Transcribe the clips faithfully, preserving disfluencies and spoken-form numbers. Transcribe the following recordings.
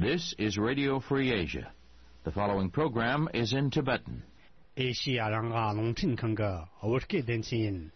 This is Radio Free Asia. The following program is in Tibetan. ཨེ་ཤི་ཡ་རང་དབང་རླུང་འཕྲིན་ཁང་གི་བོད་སྐད་སྡེ་ཚན་ཡིན།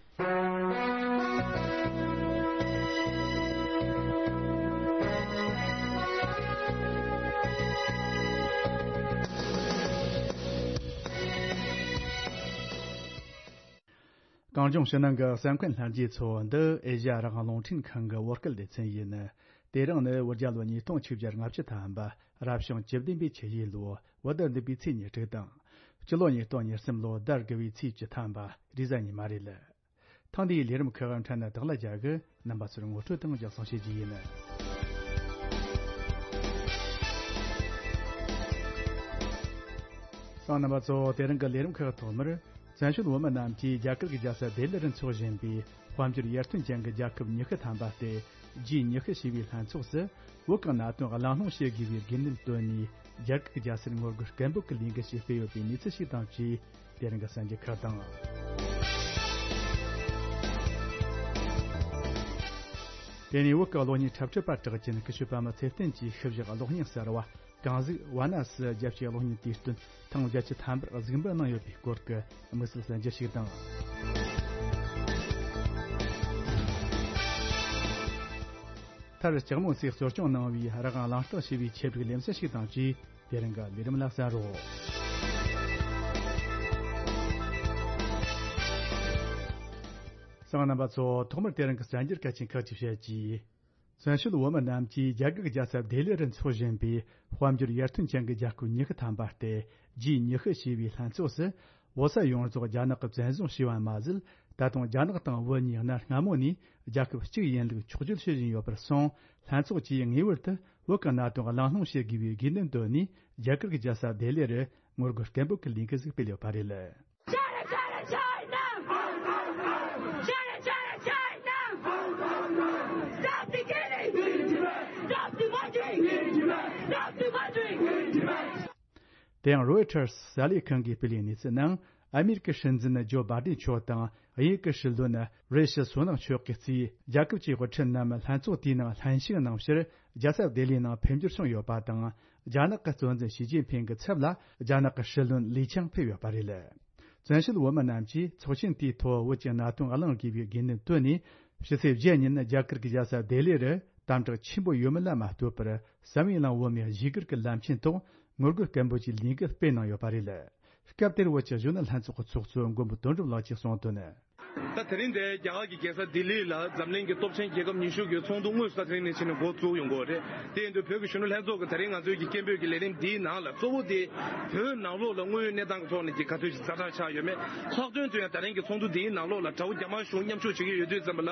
གངས་ལྗོངས་ཕྱི་ནང་གི་གསན་མཁན་ལྷན་རྒྱས་ཚོ། འདི་ཨེ་ཤ་ཡ་རང་དབང་རླུང་འཕྲིན་ཁང་གི་བོད་སྐད་སྡེ་ཚན་ཡིན། དེ་རིང་ནི་བོད་རྒྱལ་ལོ་ཉིས་སྟོང་ཆིག་བརྒྱ་ལྔ་བཅུ་ཐམ་པ། རབ་བྱུང་བཅུ་བདུན་པའི་ཆུ་ཡོས་ལོ། བོད་ཟླ་བདུན་པའི་ཚེས་ཉེར་དྲུག་དང་། སྤྱི་ལོ་ཉིས་སྟོང་ཉེར་གསུམ་ལོ་ཟླ་དགུ་བའི་ཚེས་བཅུ་ཐམ་པ། རེས་གཟའ་ཉི་མ་རེད། ཐེངས་འདིའི་ལས་རིམ་ཁག་འཕྲལ་ནས་བདག་ལ་རྒྱག་གི། རྣམ་པ་ཚོར་ངོ་སྤྲོད་དང་རྒྱབ་གསང་བྱེད་རྒྱུ་ཡིན། གསན་མཁན་རྣམ་པ་ཚོ། དེ་རིང་གི་ལས་རིམ་ཁག་ཐོག་མར། བཙན་བྱོལ་བོད་མི་རྣམས་ཀྱིས་རྒྱ་གར་གྱི་རྒྱལ་ས་ལྡི་ལིར་འཚོགས་བཞིན་པའི་དཔལ་འབྱོར་ཡར་ཐོན་ཅན་གྱི་རྒྱལ་ཁབ་ཉི་ཤུ་ཐམ་པ་སྟེ། ཇི་ཉི་ཤུ་ཞེས་པའི་ལྷན་ཚོགས་སུ། བོད་ཀྱི་གནད་དོན་གླེང་སློང་བྱེད་དགོས་པའི་དགོས་འདུན་བཏོན་ནས། རྒྱ་གར་གྱི་རྒྱལ་སར་ངོ་རྒོལ་སྐད་འབོད་ཀྱི་ལས་འགུལ་ཞིག་སྤེལ་ཡོད་པའི་གནས་ཚུལ་ཞིག་དང་བཅས། དེ་རིང་གི་གསར་འགྱུར་ཁག་དང་། དེ་ནས་བོད་ཀྱི་གློག་བརྙན་འཁྲབ་ཁྲིད་པ་གྲགས་ཅན་ཀུ་ཤུ་པདྨ་ཚེ་བརྟན་གྱིས་ཤུལ་བཞག་གློག་བརྙན་གསར་བ། གང་ཟིག་བ་ན་སི་རྒྱལ་སྤྱིའི་གློག་བརྙན་དུས་སྟོན་ཐེངས་བརྒྱད་ཅུ་ཐམ་པར་གཟིགས་འབུལ་གནང་ཡོད་པའི་སྐོར་གྱི་དམིགས་བསལ་གསར་འགྱུར་ཞིག་དང་། མཐར་ལྕགས་མོ་སིས་གཙོ་སྐྱོང་གནང་བའི་རང་དབང་གླེང་སྟེགས་ཞེས་པའི་ཆེད་སྒྲིག་ལེ་ཚན་ཞིག་དང་བཅས། དེ་རིང་གི་ལས་རིམ་ལ་གསན་རོགས། གསན་མཁན་རྣམ་པ་ཚོ། ཐོག་མར་དེ་རིང་གི་གསར་འགྱུར་གལ་ཆེན་ཁག་ཅིག་བཤད་རྒྱུ། བཙན་བྱོལ་བོད་མི་རྣམས་ཀྱིས་རྒྱ་གར་གྱི་རྒྱལ་ས་ལྡི་ལི་རུ་འཚོགས་བཞིན་པའི་དཔལ་འབྱོར་ཡར་ཐོན་ཅན་གྱི་རྒྱལ་ཁབ་ཉི་ཤུ་ཐམ་པ་སྟེ། ཇི་ཉི་ཤུ་ཞེས་པའི་ལྷན་ཚོགས་སུ། བོད་ས་ཡོངས་རྫོགས་རྒྱ་ནག་གིས་བཙན་བཟུང་བྱས་པ་མ་ཟད། ད་དུང་རྒྱ་ནག་དང་བོད་གཉིས་གནའ་སྔ་མོ་ནས་རྒྱལ་ཁབ་གཅིག་ཡིན་ལུགས་འཁྱོག་བརྗོད་བྱེད་བཞིན་ཡོད་པར་སོང་། ལྷན་ཚོགས་ཀྱིས་ངེས་པར་དུ་བོད་ཀྱི་གནད་དོན་གླེང་སློང་བྱེད་དགོས་པའི་དགོས་འདུན་བཏོན་ནས། རྒྱ་གར་གྱི་རྒྱལ་ས་ལྡི་ལི་རུ་ངོ་རྒོལ་སྐད་འབོད་ཀྱི་ལས་འགུལ་ཞིག་སྤེལ་ཡོད་པ་རེད། China, China, China! China, China, China! Stop the killing! Stop the murdering! Stop the murdering! དེ་ཡང་རོའི་ཊར་གསར་ལས་ཁང་གིས་སྤེལ་བའི་གནས་ཚུལ་ནང་། ཨ་མེ་རི་ཀའི་སྲིད་འཛིན་ཇོ་བྷ་ཏན་མཆོག་དང་། དབྱིན་ཡུལ་གྱི་སྲིད་བློན་རེ་ཤི་སུ་ནག་མཆོག་གིས་གཙོས་རྒྱལ་ཁབ་ཀྱི་དབུ་ཁྲིད་རྣམས་ལྷན་ཚོགས་དེའི་ནང་ལྷན་ཞུགས་གནང་ཕྱིར། རྒྱལ་ས་ལྡི་ལིའི་ནང་ཕེབས་འབྱོར་བྱུང་ཡོད་པ་དང་། རྒྱ་ནག་གི་གཙོ་འཛིན་ཞི་ཅིན་ཕིང་གི་ཚབ་ལ་རྒྱ་ནག་གི་སྲིད་བློན་ལི་ཆང་ཕེབས་ཡོད་པ་རེད། བཙན་བྱོལ་བོད་མི་རྣམས་ཀྱིས་ཚོགས་ཆེན་དེའི་ཐོག་བོད་ཀྱི་གནད་དོན་གླེང་དགོས་པའི་དགོས་འདུན་བཏོན་ནས། ཕྱི་ཚེས་བརྒྱད་ཉིན་རྒྱ་གར་གྱི་རྒྱལ་ས་ལྡི་ལི་རུ་དམ་དྲག་ཆེན་པོ་ཡོད་མེད་ལ་མ་ལྟོས་པར། བསམ་ཡས་གླིང་བོད་མིའི་གཞིས་སྒར་གྱི་ལམ་ཆེན་ཐོག་ངོ་རྒོལ་སྐད་འབོད་ཀྱི་ལས་འགུལ་སྤེལ་གནང་ཡོད་པ་རེད། སྐབས་དེར་བོད་ཀྱི་གཞོན་ནུ་ལྷན་ཚོགས་ཀྱི་ཚོགས་གཙོ་མགོན་པོ་དོན་གྲུབ་ལགས་ཀྱིས་གསུངས་དོན། ད་དེ་རིང་འདིར་རྒྱ་གར་གྱི་རྒྱལ་ས་ལྡི་ལི་ལ་འཛམ་གླིང་གི་སྟོབས་ཆེན་རྒྱལ་ཁབ་ཉི་ཤུ་གི་ཚོགས་འདུ་དངོས་སུ་ད་དེ་རིང་ནས་ཕྱིན་ནས་འགོ་བཙུགས་ཡོང་གི་ཡོད་རེད། དེ་ཡིན་དུས་བོད་ཀྱི་གཞོན་ནུ་ལྷན་ཚོགས་ཀྱིས་ད་རིང་ང་ཚོའི་གི་སྐད་འབོད་ཀྱི་ལས་རིམ་འདིའི་ནང་ལ་གཙོ་བོ་དེ་བོད་ནང་ལོགས་ལ་དངོས་ཡོད་གནས་སྟངས་ཀྱི་ཐོག་ནས་ཀྱི་ག་ཚོད་ཅིག་ཛ་དྲག་ཆགས་ཡོད་མེད། ལྷག་དོན་དུ་ཡང་ད་རིང་གི་ཚོགས་འདུ་འདིའི་ནང་ལོགས་ལ་དགྲ་བོ་རྒྱ་དམར་གཞུང་མཉམ་ཞུགས་བྱེད་ཀྱི་ཡོད་དུས་ཙམ་པ་ལ།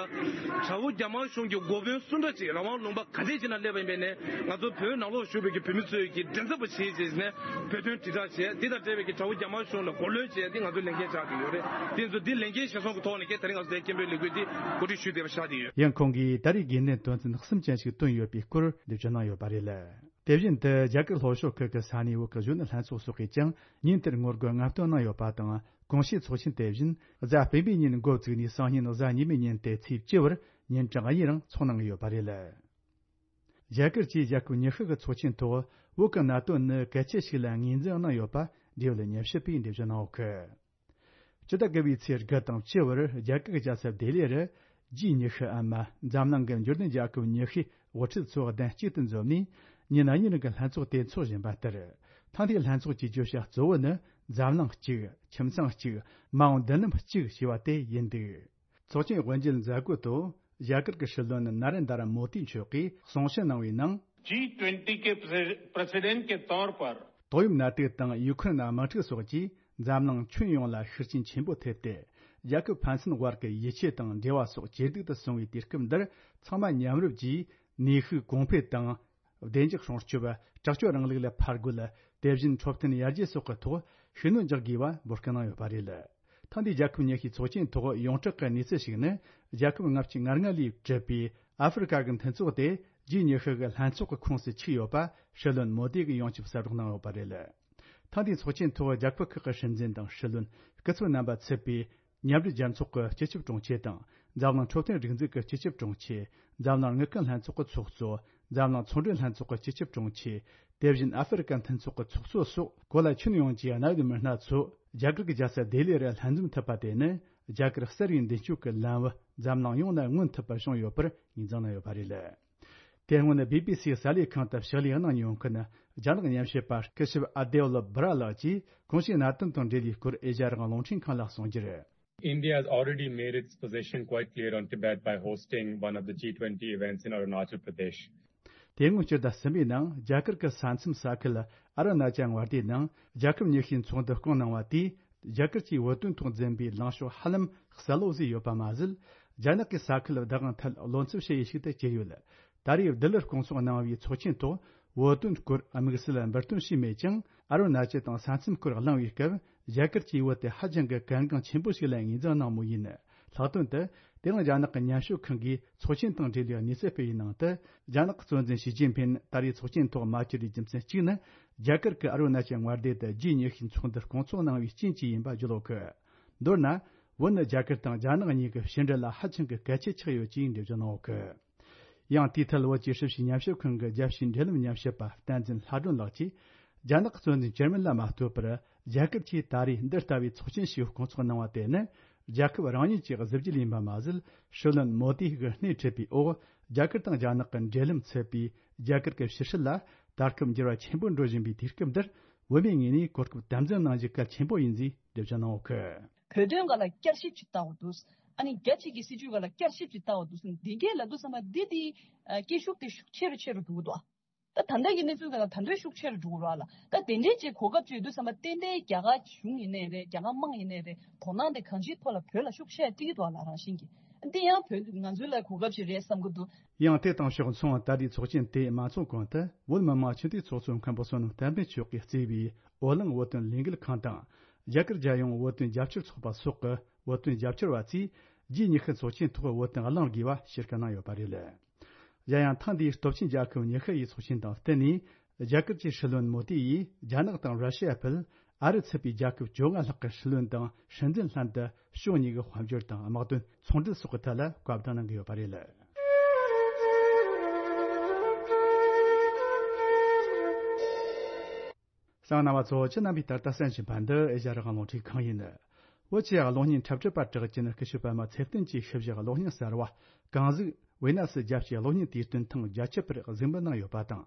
དགྲ་བོ་རྒྱ་དམར་གཞུང་གི་འགོ་དཔོན་སུ་འདྲ་ཅིག་རང་དབང་ལུང་པ་ག་ཚད་ཅིག་ན་སླེབས་པ་ཡིན་པས་ནས། ང་ཚོ་བོད་ནང་ལོགས་བཞུགས་པའི་གི་བོད་མི་ཚོས་ཀྱི་མགྲིན་ཚབ་པ་བྱེད་ཅེས་ནས་བོད་དོན་དྲིལ་བསྒྲགས་བྱས། དེ་དང་འབྲེལ་བའི་གི་དགྲ་བོ་རྒྱ་དམར་གཞུང་ལ་མགོ་གློད་བྱས་ཏེ་ང་ཚོའི་ལས་འགན་ཆགས་ཀྱི་ཡོད་རེད། དེ་ཚོ་འདི་ལས་འགན་གཞིར་བཟུང་གི་ཐོག་ནས་ཀྱི་ད་རིང་ང་ཚོ་དེ་སྐད་འབོད་ལས་འགུལ་འདི་གོ་སྒྲིག་ཞུས་བསྡད་པ་ཆགས་ཀྱི་ཡོད། ཡང་ཁོང་གིས་ད་རེས་དགོས་འདུན་དོན་ཚན་གསུམ་ཅན་ཞིག་བཏོན་ཡོད་པའི་སྐོར་འགྲེལ་བརྗོད་གནང་ཡོད་པ་རེད། དེ་བཞིན་དུ་རྒྱ་གར་ལྷོ་ཕྱོགས་ཁུལ་གྱི་ས་གནས་བོད་ཀྱི་གཞོན་ནུ་ལྷན་ཚོགས་སོགས་ཀྱིས་ཀྱང་ཉིན་དེར་ངོ་རྒོལ་ལྔ་བཏོན་གནང་ཡོད་པ་དང་། གོང་ཞུས་ཚོགས་ཆེན་དེ་བཞིན་གཟའ་སྤེན་པའི་ཉིན་འགོ་བཙུགས་ནས་སང་ཉིན་གཟའ་ཉི་མའི་ཉིན་ཏེ་ཚེས་བཅུ་བར་ཉིན་གྲངས་གཉིས་རིང་འཚོགས་གནང་གི་ཡོད་པ་རེད། རྒྱ་གར་གྱིས་རྒྱལ་ཁབ་ཉི་ཤུ་གི་ཚོགས་ཆེན་ཐོག་བོད་ཀྱི་གནད་དོན་ནི་གལ་ཆེ་ཞིག་ལ་ངོས་འཛིན་གནང་ཡོད་པ་འབྲེལ་ཡོད་ཉམས་ཞིབ་པས་འགྲེལ་བརྗོད་གནང་ཡོད་གི། སྤྱི་ཟླ་དགུ་པའི་ཚེས་དགུ་དང་བཅུ་བར་རྒྱ་གར་གྱི་རྒྱལ་ས་ལྡི་ལི་རུ་ཇི་ཉི་ཤུ་འམ་འཛམ་གླིང་གི་འབྱོར་ལྡན་རྒྱལ་ཁབ་ཉི་ཤུའི་དབུ་ཁྲིད་ཚོ་གདན་གཅིག་ཏུ་འཛོམས་ནས་ཉིན་གཉིས་རིང་གི་ལྷན་ཚོགས་དེ་འཚོགས་བཞིན་པ་ལྟར། ཐེངས་འདིའི་ལྷན་ཚོགས་ཀྱི་བརྗོད་བྱ་གཙོ་བོ་ནི་འཛམ་གླིང་གཅིག་ཁྱིམ་ཚང་གཅིག་མ་འོངས་མདུན་ལམ་གཅིག་ཞེས་པ་དེ་ཡིན་འདུག་ཚོགས་ཆེན་དབུ་འབྱེད་མཛད་སྒོའི་ཐོག་རྒྱ་གར་གྱི་སྲིད་བློན་ནཱ་རེན་དར་མོ་དི་མཆོག་གིས་གསུང་བཤད་གནང་བའི་ནང་། G twenty के प्रेसिडेंट के तौर पर ཏོག་དབྱིབས་ནད་དུག་དང་ཡུ་ཁུ་རེན་དམག་འཁྲུག་སོགས་ཀྱིས་འཛམ་གླིང་ཁྱོན་ཡོངས་ལ་ཤུགས་རྐྱེན་ཆེན་པོ་ཐེབས་ཏེ། རྒྱལ་ཁབ་ཕན་ཚུན་དབར་གྱི་ཡིད་ཆེས་དང་འབྲེལ་བ་སོགས་ཇེ་སྡུག་ཏུ་སོང་བའི་དུས་སྐབས་འདིར། ཚང་མ་མཉམ་རུབ་ཀྱིས་ནུས་ཤུགས་གོང་འཕེལ་དང་། བདེ་འཇགས་སྲུང་སྐྱོབ། དྲག་སྤྱོད་རིང་ལུགས་ལ་ཕར་རྒོལ། དེ་བཞིན་འཕྲོད་བསྟེན་ཡར་རྒྱས་སོགས་ཀྱི་ཐོག་ཤུགས་སྣོན་རྒྱག་དགོས་པ་འབོད་སྐུལ་གནང་ཡོད་པ་རེད། ཐེངས་འདིའི་རྒྱལ་ཁབ་ཉི་ཤུའི་ཚོགས་ཆེན་ཐོག་ཡོངས་གྲགས་ཀྱི་གནས་ཚུལ་ཞིག་ནི། རྒྱལ་ཁབ་ལྔ་བཅུ་ང་ལྔ་ལས་གྲུབ་པའི་ཨ་ཧྥེ་རི་ཁ་གི་མཐུན་ཚོགས་དེ་ཇི་ཉི་ཤུ་གི་ལྷན་ཚོགས་ཀྱི་ཁོངས་སུ་ཆུད་ཡོད་པ་སྲིད་བློན་མོ་དི་གིས་ཡོངས་ཁྱབ་གསལ་བསྒྲགས་གནང་ཡོད་པ་རེད། ཐེངས་འདིའི་ཚོགས་ཆེན་ཐོག་རྒྱལ་ཁབ་ཁག་གི་སྲིད་འཛིན་དང་སྲིད་བློན། སྐུ་ཚབ་རྣམ་པ་ཚུད་པའི་མཉམ་འབྲེལ་རྒྱལ་ཚོགས་ཀྱི་སྤྱི་ཁྱབ་དྲུང་ཆེ་དང་། འཛམ་གླིང་འཕྲོད་བསྟེན་སྒྲིག་འཛུགས་ཀྱི་སྤྱི་ཁྱབ་དྲུང་ཆེ། འཛམ་གླིང་དངུལ་ཁང་ལྷན་ཚོགས་ཀྱི་ཚོགས་གཙོ། འཛམ་གླིང་ཚོང་འབྲེལ་ལྷན་ཚོགས་ཀྱི་སྤྱི་ཁྱབ་དྲུང་ཆེ། དེ་བཞིན་ཨ་ཧྥེ་རི་ཀ་མཐུན་ཚོགས་ཀྱི་ཚོགས་གཙོ་སོགས་གོ་ལ་ཁྱོན་ཡོངས་ཀྱི་གནད་ཡོད་མི་སྣ་ཚོ་རྒྱ་གར་གྱི་རྒྱལ་ས་ལྡི་ལི་རུ་ལྷན་འཛོམས་ཐུབ་པ་དེ་ནི་རྒྱ་གར་གསར་བའི་མདུན་སྐྱོད་ཀྱི་ལམ་བུ་འཛམ་གླིང་ཡོངས་ནས་མངོན་ཐུབ་པ་བྱུང་ཡོད་པར་ངོས་འཛིན་གནང་ཡོད་པ་རེད། དེ་སྔོན་བི་བི་སིའི་གསར་ལས་ཁང་དུ་ཕྱག་ལས་གནང་མྱོང་མཁན་རྒྱ་ནག་ཉམས་ཞིབ་པ་སྐུ་ཞབས་ཨ་དེ་ལ་བྷ་ར་ལགས་ཀྱིས་གོང་ཞུས་གནད་དོན་དང་འབྲེལ་བའི་སྐོར་ཨེ་ཤ་ཡ་རང་དབང་རླུང་འཕྲིན་ཁང་ལ་གསུངས་རྒྱུར། India has already made its position quite clear on Tibet by hosting one of the G twenty events in Arunachal Pradesh. དེ་སྔོན་སྤྱི་ཟླ་གསུམ་པའི་ནང་རྒྱ་གར་གྱི་ས་མཚམས་ས་ཁུལ་ཨ་རུ་ན་ཅལ་མངའ་སྡེའི་ནང་རྒྱལ་ཁབ་ཉི་ཤུའི་ཚོགས་འདུ་བསྐོངས་གནང་བ་དེས་རྒྱ་གར་གྱིས་བོད་དོན་ཐོག་འཛིན་པའི་ལངས་ཕྱོགས་ཧ་ལམ་གསལ་ལོ་བཟོས་ཡོད་པ་མ་ཟད། རྒྱ་ནག་གིས་ས་ཁུལ་བདག་དབང་ཐད་བློ་འཚབ་བྱེད་ཡུལ་ཞིག་ཏུ་གྱུར་ཡོད། ད་རེས་ལྡི་ལིར་བསྐོང་ཚོགས་གནང་བའི་ཚོགས་ཆེན་ཐོག་བོད་དོན་སྐོར་དམིགས་བསལ་འབུར་ཐོན་བྱས་མེད་ཀྱང་། ཨ་རུ་ན་ཅལ་དང་ས་མཚམས་སྐོར་གླེང་བའི་སྐབས། རྒྱ་གར་གྱིས་བོད་དེ་ཧ་ཅང་གི་གལ་འགངས་ཆེན་པོ་ཞིག་ལ་ངོས་འཛིན་གནང་མུས་ཡིན། ལྷག་དོན་དུ། དེ་རིང་རྒྱ་ནག་གི་ཉམས་ཞིབ་ཁང་གིས་ཚོགས་ཆེན་དང་འབྲེལ་བའི་གནས་ཚུལ་སྤེལ་བའི་ནང་དུ། རྒྱ་ནག་གཙོ་འཛིན་ཞི་ཅིན་ཕིན་ད་རེས་ཚོགས་ཆེན་ཐོག་མ་བཅར་བའི་རྒྱུ་མཚན་གཅིག་ནི། རྒྱ་གར་གྱིས་ཨ་རུ་ན་ཅལ་མངའ་སྡེ་དུ་ཇི་ཉི་ཤུའི་ཚོགས་འདུ་བསྐོང་ཚོགས་གནང་བའི་རྐྱེན་གྱིས་ཡིན་པ་བརྗོད་ཡོད་གི། མདོར་ན། བོད་ནི་རྒྱ་གར་དང་རྒྱ་ནག་གཉིས་ཀྱི་ཕྱི་འབྲེལ་ལ་ཧ་ཅང་གི་གལ་ཆེ་ཆགས་ཡོད་ཅེས་འགྲེལ་བརྗོད་གནང་ཡོད་གི། ཡང་དེའི་ཐད་བོད་ཀྱི་ཧྲི་ཞི་ཉམས་ཞིབ་ཁང་གི་རྒྱལ་སྤྱིའི་འབྲེལ་ལམ་ཉམས་ཞིབ་པ་བསྟན་འཛིན་ལྷ་སྒྲོན་ལགས་ཀྱིས། རྒྱ་ནག་གཙོ་འཛིན་ཇར་མན་ལ་མ་ལྟོས་པར། རྒྱ་གར་གྱིས་ད་རེས་འདི་ལྟ་བུའི་ཚོགས་ཆེན་ཞིག་བསྐོང་ཚོགས་གནང་བ་དེ་ནི། རྒྱལ་ཁབ་རང་ཉིད་ཀྱི་གཟི་བརྗིད་ཡིན་པ་མ་ཟད། སྲིད་བློན་མོ་དི་གིས་སྣེ་ཁྲིད་པའི་འོག་རྒྱ་གར་དང་རྒྱ་ནག་གི་འབྲེལ་ལམ་ཚུད་པའི་རྒྱ་གར་གྱི་ཕྱི་སྲིད་ལ་ད་སྐབས་འགྱུར་བ་ཆེན་པོ་འགྲོ་བཞིན་པའི་དུས་སྐབས་འདིར། བོད་མིའི་ངོས་ནས་གོ་སྐབས་དམ་འཛིན་གནང་རྒྱུ་གལ་ཆེན་པོ་ཡིན་ཅེས་འགྲེལ་བརྗོད་གནང་ཡོད་གི། བོད་དོན་སྒང་ལ་བསྐྱར་ཞིབ་ཅིག་བཏང་བ་འདུག་ཨ་ནི་རྒྱ་གཅིག་གི་སྲིད་ཇུས་སྒང་ལ་བསྐྱར་ཞིབ་ཅིག་བཏང་བ་འདུག་ཟེར་ནས་འདི་གས་ལབ་དུས་ཙམ་པ་འདི་དེ་སྐད་ཤུགས་དེ་ཤུགས་ཆེ་རུ་ཆེ་རུ་འགྲོ་གི་འདུག་ད་ད་ལྟ་གི་གནས་ཚུལ་སྒང་ལ་ད་འདྲ་ཤུགས་ཆེ་རུ་འགྲོ་གི་རེད་ལ། ད་དེ་འདྲའི་ཅིག་གོ་སྐབས་ཅིག་ཡོད་དུས་ཙམ་པ་ཏན་ཏན་རྒྱ་གར་གཞུང་ཡིན་ནའི་རེད། རྒྱ་གར་དམངས་ཡིན་ནའི་རེད། དོ་སྣང་དེ་གང་ཅིའི་ཐོག་ལ་བོད་ལ་ཤུགས་ཆེ་སྤྲད་ཀྱི་འདུག་ལ། རང་བཞིན་གྱིས་འདི་ཡང་བོད་ང་ཚོའི་ལ་གོ་སྐབས་ཅིག་རེད་བསམ་གྱི་འདུག་ཡང་དེ་དང་ཕྱོགས་མཚུངས་ད་ལྟའི་ཚོགས་ཆེན་དེ་མ་ཚོགས་གོང་དུ་བོད་མི་མང་སྤྱི་འཐུས་ཚོགས་གཙོ་མཁན་པོ་བསོད་ནམས་བསྟན་འཕེལ་མཆོག་གིས་གཙོས་པའི་འོ་གླིང་བོད་དོན་ལས་འགུལ་ཁང་དང་། རྒྱ་གར་རྒྱལ་ཡོངས་བོད་དོན་རྒྱབ་སྐྱོར་ཚོགས་པ་སོགས་ཀྱི་བོད་དོན་རྒྱབ་སྐྱོར་བ་ཚོས་རྗེས་ཉི་ཤུ་ཚོགས་ཆེན་ཐོག་བོད་དོན་གླེང་དགོས་པ་ཞུ་སྐུལ་གནང་ཡོད་པ་རེད། གཞན་ཡང་ཐེངས་འདིའི་སྟོབས་ཆེན་རྒྱལ་ཁབ་ཉི་ཤུ་ཡི་ཚོགས་ཆེན་དང་བསྟུན་ནས། རྒྱ་གར་གྱི་སྲིད་བློན་མོ་དི་ཡིས་རྒྱ་ནག་དང་ར་ཤི་ཡ་ཕུད། ཨ་རི་ཚུད་པའི་རྒྱལ་ཁབ་བཅོ་ལྔ་ལྷག་གི་སྲིད་བློན་དང་སྲིད་འཛིན་ལྷན་དུ་ཕྱོགས་གཉིས་ཀྱི་དཔལ་འབྱོར་དང་དམག་དོན་ཚོང་འབྲེལ་སོགས་ཀྱི་ཐད་ལ་བཀའ་བསྡུར་གནང་གི་ཡོད་པ་རེད། གསན་མཁན་རྣམ་པ་ཚོ། ཁྱེད་རྣམ་པས་ད་ལྟ་གསན་བཞིན་པ་འདི་ཨེ་ཤ་ཡ་རང་དབང་རླུང་འཕྲིན་ཁང་ཡིན། བོད་ཀྱི་གློག་བརྙན་འཁྲབ་ཁྲིད་པ་གྲགས་ཅན་སྐུ་ཞབས་པད་མ་ཚེ་བརྟན་གྱི་ཞིབ་བཞག་གློག་བརྙན་གསར་བ་གངས་གཟུགས་ཝི་ན་སི་རྒྱལ་སྤྱིའི་གློག་བརྙན་དུས་སྟོན་ཐེངས་བརྒྱད་ཅུ་པར་གཟིགས་འབུལ་གནང་ཡོད་པ་དང་།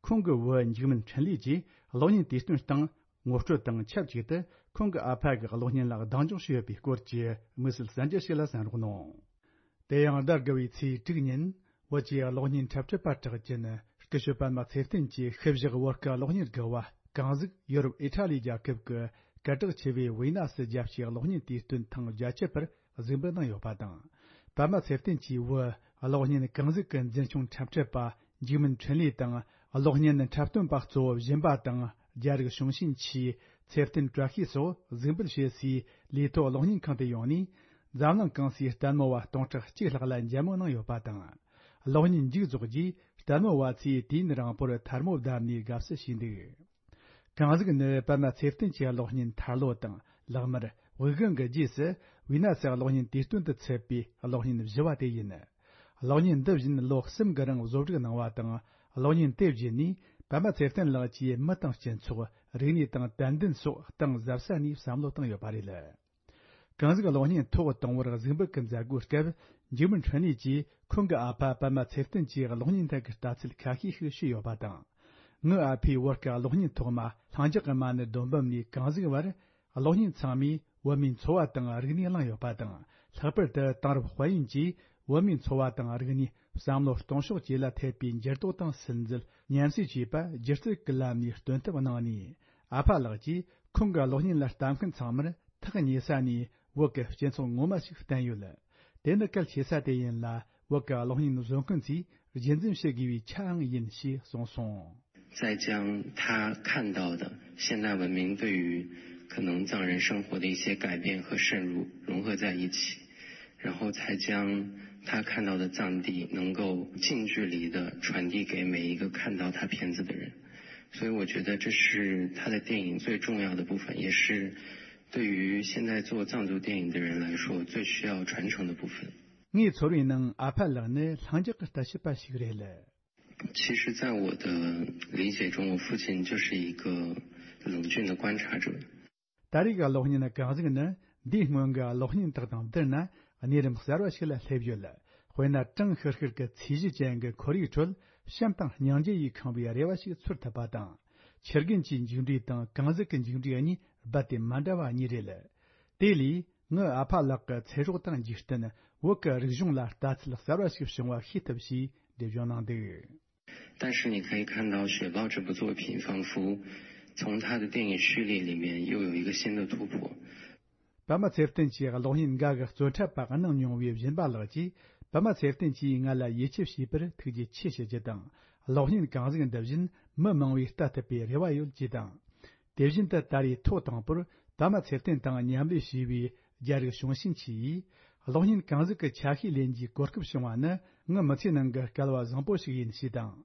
ཁོང་གི་བུ་འཇིགས་མེད་འཕྲིན་ལས་ཀྱིས་གློག་བརྙན་དུས་སྟོན་སྟེང་ངོ་སྤྲོད་དང་ཆབས་ཅིག་ཏུ་ཁོང་གི་ཨ་ཕ་གི་གློག་བརྙན་ལ་གདེང་འཇོག་བྱས་ཡོད་པའི་སྐོར་གྱི་དམིགས་བསལ་གསར་འགྱུར་ཞིག་ལ་གསན་རོགས་གནང་། དེ་ཡང་ཟླ་དགུ་བའི་ཚེས་དྲུག་ཉིན་བོད་ཀྱི་གློག་བརྙན་འཁྲབ་ཁྲིད་པ་གྲགས་ཅན་སྐུ་ཞབས་པད་མ་ཚེ་བརྟན་གྱི་ཞིབ་བཞག་བོད་ཀྱི་གློག་བརྙན་དགུ་བ་གངས་གཟུགས་ཡུ་རོབ་ཨི་ཊ་ལི་རྒྱལ་ཁབ་ཀྱི་སྐད་གྲགས་ཆེ་བའི་ཝི་ན་སི་རྒྱལ་སྤྱིའི་གློག་བརྙན་དུས་སྟོན་ཐེངས་བརྒྱད་ཅུ་པར་གཟིགས་འབུལ་གནང་ཡོད་པ་དང་། པད་མ་ཚེ་བརྟན་གྱི་བུ་གློག་བརྙན་གངས་གཟུགས་ཀྱི་འཛིན་སྐྱོང་འཁྲབ་ཁྲིད་པ་འཇིགས་མེད་འཕྲིན་ལས་དང་། གློག་བརྙན་འཁྲབ་སྟོན་པ་གཙོ་བོ་སྦྱིན་པ་དང་རྒྱ་རིགས་གཞུང་ཞེན་ཆེའི་ཚེ་བརྟན་བཀྲ་ཤིས་སོགས་གཟིགས་འབུལ་བྱེད་སའི་ལས་ཐོག་གློག་བརྙན་ཁང་དུ་ཡོང་ནས། འཛམ་གླིང་གང་སའི་ལྟད་མོ་བ་སྟོང་ཕྲག་གཅིག་ལྷག་ལ་མཇལ་མོལ་གནང་ཡོད་པ་དང་། གློག་བརྙན་མཇུག་རྫོགས་རྗེས་ལྟད་མོ་བ་ཚོས་དུས་ཡུན་རིང་པོར་ཐལ་མོ་བརྡབས་ནས་དགའ་བསུ་བྱས་འདུག་གངས་གཟུགས་ནི་པད་མ་ཚེ་བརྟན་གྱི་གློག་བརྙན་ཐར་ལོ་དང་ལག་དམར་དབུགས་དབྱུང་གི་རྗེས་སུ་ཝི་ན་སི་གློག་བརྙན་དུས་སྟོན་དུ་ཚུད་པའི་གློག་བརྙན་བཞི་བ་དེ་ཡིན། གློག་བརྙན་འདི་བཞིན་ལོ་གསུམ་གྱི་རིང་བཟོ་སྒྲིག་གནང་བ་དང་། གློག་བརྙན་དེ་བརྒྱུད་ནས་པད་མ་ཚེ་བརྟན་ལགས་ཀྱིས་མི་དང་སྤྱི་ཚོགས། རིག་གནས་དང་དད་འདུན་སོགས་གཏིང་ཟབ་ས་ནས་བསམ་བློ་བཏང་ཡོད་པ་རེད། གངས་གཟུགས་གློག་བརྙན་ཐོག་དང་པོར་གཟིགས་འབུལ་གྱི་མཛད་སྒོའི་སྐབས། འཇིགས་མེད་འཕྲིན་ལས་ཀྱིས་ཁོང་གི་ཨ་ཕ་པད་མ་ཚེ་བརྟན་གྱིས་གློག་བརྙན་ཐད་ཀྱི་ལྟ་ཚུལ་ཁ་ཤས་ཤིག་ཞུས་ཡོད་པ་དང་། ངའི་ཨ་ཕས་བོད་ཀྱི་གློག་བརྙན་ཐོག་མ་ལྷིང་འཇགས་ཀྱི་མ་ཎི་སྡོམ་པ་ནས་གངས་གཟུགས་བར། གློག་བརྙན་ཚང་མས་བོད་མིའི་འཚོ་བ་དང་རིག་གནས་བླངས་ཡོད་པ་དང་། ལྷག་པར་དུ་དེང་རབས་དཔལ་ཡོན་གྱིས་བོད་མིའི་འཚོ་བ་དང་རིག་གནས། བསམ་བློ་གཏོང་ཕྱོགས་བཅས་ལ་ཐེབས་པའི་འགྱུར་ལྡོག་དང་སིམ་འཛུལ། ཉམས་སུ་བཅོས་པ་སྒྱུ་རྩལ་གྱི་ལམ་ནས་སྟོན་ཐབས་གནང་ནས། ཨ་ཕ་ལགས་ཀྱིས་ཁོང་གི་གློག་བརྙན་ལ་ལྟ་མཁན་ཚང་མར་ཐག་ཉེ་ས་ནས་བོད་ཀྱི་སྤྱི་ཚོགས་ངོ་མ་ཞིག་བསྟན་ཡོད། དེ་ནི་གལ་ཆེ་ས་དེ་ཡིན་ལ། བོད་ཀྱི་གློག་བརྙན་བཟོ་མཁན་ཚོས་རྒྱུན་འཛིན་བྱེད་དགོས་པའི་ཆའང་ཡིན་ཞེས་གསུངས་སོང་། 再将他看到的现代文明对于可能藏人生活的一些改变和渗入融合在一起，然后才将他看到的藏地能够近距离的传递给每一个看到他片子的人。所以我觉得这是他的电影最重要的部分，也是对于现在做藏族电影的人来说最需要传承的部分。 ངའི་ཚོར་བའི་ནང་ཨ་ཕ་ལགས་ནི་ལྷིང་འཇགས་ཀྱི་ལྟ་བྱེད་པ་ཞིག་རེད། 其实，在我的理解中，我父亲就是一个冷峻的观察者。ད་རེས་ཀྱི་གློག་བརྙན་གང་ཟིག་ནི་འདིའི་སྔོན་གྱི་གློག་བརྙན་དག་དང་བསྡུར་ན་གནས་རིམ་གསར་བ་ཞིག་ལ་སླེབས་ཡོད། དཔེར་ན། གྲང་ཤུར་ཤུར་གྱི་ཚོས་གཞི་ཅན་གྱི་ཁོར་ཡུག་ཁྲོད་བྱམས་དང་སྙིང་རྗེ་ཡིས་ཁེངས་པའི་རེ་བ་ཞིག་ཚོར་ཐུབ་པ་དང་། ཆུ་རྒན་གྱི་མཇུག་འབྲས་དང་གངས་ཟིག་གི་མཇུག་འབྲས་གཉིས་རྦད་དེ་མ་འདྲ་བ་གཉིས་རེད། དེ་ལས། ངའི་ཨ་ཕ་ལགས་ཀྱི་ཚེ་སྲོག་དང་འཇིག་རྟེན། བོད་ཀྱི་རིག་གཞུང་ལ་ལྟ་ཚུལ་གསར་བ་ཞིག་བྱུང་བ་ཤེས་ཐུབ་ཞེས་འགྲེལ་བརྗོད་གནང་འདུག། 但是你可以看到《雪豹》这部作品，仿佛从他的电影序列里面又有一个新的突破。 པདྨ་ཚེ་བརྟན་གྱི་གློག་བརྙན་འགའ་གི་རྩོད་འཁྲབ་པ་གནང་མྱོང་བའི་སྦྱིན་པ་ལགས་ཀྱིས། པདྨ་ཚེ་བརྟན་གྱིས་ང་ལ་ཡིད་ཆེས་བྱས་པར་ཐུགས་རྗེ་ཆེ་ཞུ་རྒྱུ་དང་། གློག་བརྙན་གང་ཟིག་འདི་བཞིན་མི་མང་བས་ལྟ་ཐུབ་པའི་རེ་བ་ཡོད་ཅེས་དང་། དེ་བཞིན་དུ་ད་རེས་ཐོག་དང་པོར་པདྨ་ཚེ་བརྟན་དང་མཉམ་ལས་བྱས་པའི་རྒྱ་རིགས་བྱུང་ཤིན་ཆི་ཡིས། གློག་བརྙན་གང་ཟིག་གི་ཆ་ཤས་ལེན་རྒྱུའི་གོ་སྐབས་བྱུང་བ་ནི་ངའི་མི་ཚེ་ནང་གི་སྐལ་བ་བཟང་པོ་ཞིག་ཡིན་ཞེས་དང་།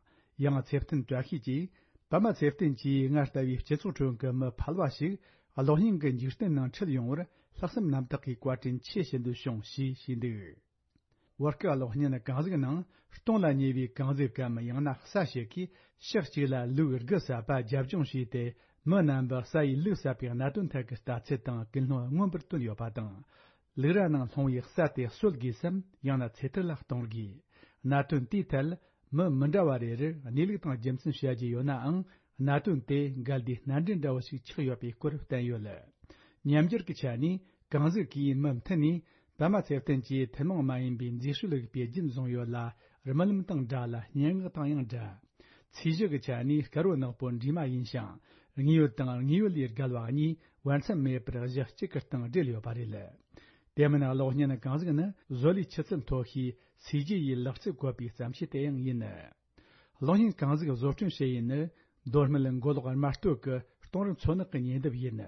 ཡང་ཚེ་བརྟན་བཀྲ་ཤིས་ཀྱིས། པདྨ་ཚེ་བརྟན་གྱིས་ང་ལྟ་བུའི་སྤྱི་ཚོགས་ཁྲོད་ཀྱི་མི་ཕལ་བ་ཞིག་གློག་བརྙན་གྱི་འཇིག་རྟེན་ནང་ཁྲིད་ཡོང་བར་ལྷག་བསམ་རྣམ་དག་གིས་བཀའ་དྲིན་ཆེ་ཞུ་འདོད་བྱུང་ཞེས་བཤད་འདུག། བོད་སྐད་གློག་བརྙན་གང་ཟིག་ནང་སྟོང་ལ་ཉེ་བའི་གངས་ཟིག་གམ། ཡང་ན་ས་ཞིག་གིས་ཕྱོགས་གཅིག་ལ་ལུག་དགུ་བསད་པ་རྒྱབ་ལྗོངས་བྱས་ཏེ། མི་རྣམ་པ་ས་ཡིས་ལུག་བསད་པའི་གནད་དོན་ཐད་ཀྱི་ལྟ་ཚུལ་དང་ཀུན་སློང་མངོན་པར་བསྟན་ཡོད་པ་དང་། ལུག་ར་ནང་ལྷུང་བའི་ས་དེ་གསོད་དགོས་སམ། ཡང་ན་ཚེ་ཐར་ལ་གཏོང་དགོས། གནད་དོན་དེའི་ཐད་མི་མི་འདྲ་བ་རེ་རེར་གནས་ལུགས་དང་རྒྱུ་མཚན་བཤད་རྒྱུ་ཡོད་ནའང་། གནད་དོན་དེ་འགལ་ཟླའི་སྣ་འདྲེན་འདྲ་བོ་ཞིག་ཆགས་ཡོད་པའི་སྐོར་བསྟན་ཡོད། ཉམས་འགྱུར་གྱི་ཆ་ནས་གངས་ཟིག་གིས་མུ་མཐུད་ནས་པདྨ་ཚེ་བརྟན་གྱིས་ཐུན་མོང་མ་ཡིན་པའི་མཛེས་དཔྱོད་རིག་པའི་རྒྱུན་བཟུང་ཡོད་ལ། རྨི་ལམ་དང་འདྲ་ལ། སྙན་ངག་དང་ཡང་འདྲ། ཚོས་གཞི་གི་ཆ་ནས་དཀར་བོ་ནག་པོ་འདྲེས་མ་ཡིན་ཞིང་། དངོས་ཡོད་དང་དངོས་ཡོད་ལས་བརྒལ་བ་གཉིས་བར་མཚམས་མེད་པར་གཞི་གཅིག་གི་སྟེང་སྦྲེལ་ཡོད་པ་རེད། དེ་མིན་གློག་བརྙན་གང་ཟིག་ནི་བཟོ་ལས་ཆུ་ཚད་མཐོ་ཤོས་ཚོས་གཞི་ཡི་ལག་རྩལ་བཀོད་པའི་བརྩམས་ཆོས་དེ་ཡང་ཡིན། གློག་བརྙན་གང་ཟིག་བཟོ་སྐྲུན་བྱེད་ཡུལ་ནི། མདོ་སྨད་མགོ་ལོག་རྨ་སྟོད་ཀྱི་སྟོང་རི་མཚོ་ནག་གི་ཉེ་འདབས་ཡིན།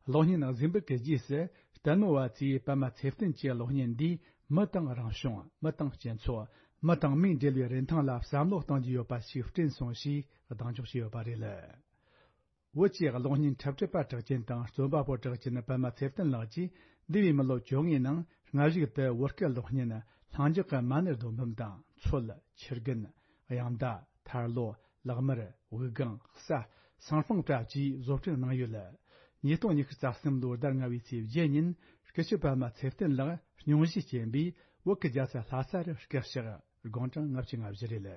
གློག་བརྙན་གཟིགས་འབུལ་གྱི་རྗེས་སུ་ལྟད་མོ་བ་ཚོས་པདྨ་ཚེ་བརྟན་གྱི་གློག་བརྙན་འདིས་མི་དང་རང་བྱུང་། མི་དང་སྤྱི་ཚོགས། མི་དང་མིའི་འབྲེལ་བའི་རིན་ཐང་ལ་བསམ་བློ་གཏོང་རྒྱུ་ཡོད་པ་ཞིག་བསྐྲུན་སོང་ཞེས་གདེང་འཇོག་བྱས་ཡོད་པ་རེད། བོད་ཀྱི་གློག་བརྙན་འཁྲབ་ཁྲིད་པ་གྲགས་ཅན་དང་རྩོམ་པ་པོ་གྲགས་ཅན་པདྨ་ཚེ་བརྟན་ལགས་ཀྱིས་འདས་པའི་མི་ལོ་བཅོ་ལྔའི་ནང་སྔ་གཞུག་ཏུ་བོད་སྐད་གློག་བརྙན་ལྷིང་འཇགས་ཀྱི་མ་ཎི་རྡོ་འབུམ་དང་མཚོལ། ཆུ་རྒན། གཡང་མདའ། ཐར་ལོ། ལག་དམར། དབུགས་ལྒང་། ས། སང་ཧྥང་བཀྲ་བཅས་བཟོ་སྐྲུན་གནང་ཡོད། ཉིས་སྟོང་ཉི་ཤུ་རྩ་གསུམ་ལོའི་ཟླ་ལྔ་བའི་ཚེས་བརྒྱད་ཉིན་སྐུ་ཞབས་པདྨ་ཚེ་བརྟན་ལགས་སྙུང་གཞིས་བྱོན་པས་བོད་ཀྱི་རྒྱལ་ས་ལྷ་ས་རུ་སྐུ་གཤེགས། དགུང་གྲངས་ལྔ་བཅུ་ང་བཞི་རེད།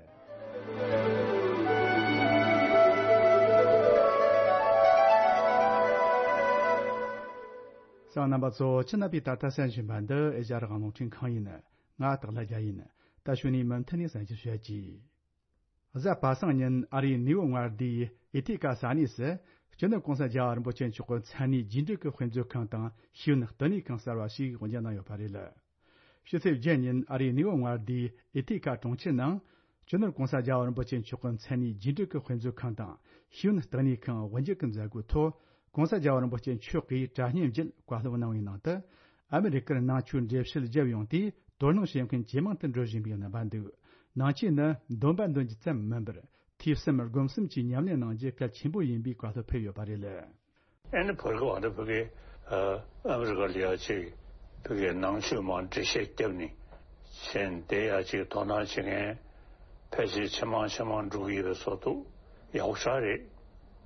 གསན་པ་རྣམ་པ་ཚོ། ཁྱེད་རྣམ་པས་ད་ལྟ་གསན་བཞིན་པ་འདི་ཨེ་ཤ་ཡ་རང་དབང་རླུང་འཕྲིན་ཁང་ཡིན། ང་སྟག་ལྷ་རྒྱལ་ཡིན། ད་གཞུག་ནས་མུ་མཐུད་ནས་གསན་རྒྱུ་ཞུ་ཡ་གྱིས། གཟའ་པ་སངས་ཉིན་ཨ་རིའི་ནེའུ་ཡོག་མངའ་སྡེའི་ཨེ་ཐི་ཀ་ས་གནས་སུ་སྤྱི་ནོར་༸གོང་ས་༸རྒྱལ་བ་རིན་པོ་ཆེ་མཆོག་གི་མཚན་གནས་རྒྱས་འབྲིང་གི་དཔེ་མཛོད་ཁང་དང་ཤེས་ཡོན་བསྟི་གནས་ཁང་གསར་བ་ཞིག་དབུ་འབྱེད་གནང་ཡོད་པ་རེད། ཕྱི་ཚེས་བརྒྱད་ཉིན་ཨ་རིའི་ནེའུ་ཡོག་མངའ་སྡེའི་ཨེ་ཐི་ཀ་གྲོང་ཁྱེར་ནང་སྤྱི་ནོར་༸གོང་ས་༸རྒྱལ་བ་རིན་པོ་ཆེ་མཆོག་གི་མཚན་གནས་རྒྱས་འབྲིང་གི་དཔེ་མཛོད་ཁང་དང་ཤེས་ཡོན་བསྟི་གནས་ཁང་དབུ་འབྱེད་ཀྱི་མཛད་སྒོའི་ཐོག༸གོང་ས་༸རྒྱལ་བ་རིན་པོ་ཆེ་མཆོག་གིས་དྲ་བརྙན་བརྒྱུད་བཀའ་སློབ་གནང་བའི་ནང་དུ། ཨ་མི་རི་ཀར་ནང་ཆོས་འགྲེལ་བཤད་བརྒྱབ་ཡོང་དུས་དོ་སྣང་བྱེད་མཁན་ཇེ་མང་དུ་འགྲོ་བཞིན་པའི་རྣམ་པ་འདུག། ནང་ཆོས་ནི་འདོན་པ་འདོན་རྒྱུ་ཙམ་མིན་པར་ཐོས་བསམ་སྒོམ་གསུམ་གྱི་ཉམས་ལེན་གནང་རྒྱུ་གལ་ཆེན་པོ་ཡིན་པའི་བཀའ་སློབ་ཕེབས་ཡོད་པ་རེད། ཨ་ནི་བར་གི་བར་དུ་ཕ་གི་ཨ་མི་རི་ཀ་ལ་ཡ་ཅིག་ཕ་གི་ནང་ཆོས་མར་འགྲེལ་བཤད་བརྒྱབ་ནས་བྱས་ནས་དེ་ཡ་ཅིག་དོ་སྣང་བྱེད་མཁན་ཕལ་ཆེར་ཇེ་མང་ཇེ་མང་འགྲོ་གི་ཡོད་པའི་བཟོ་འདུག། ཡག་པོ་ཞེ་དྲག་རེད།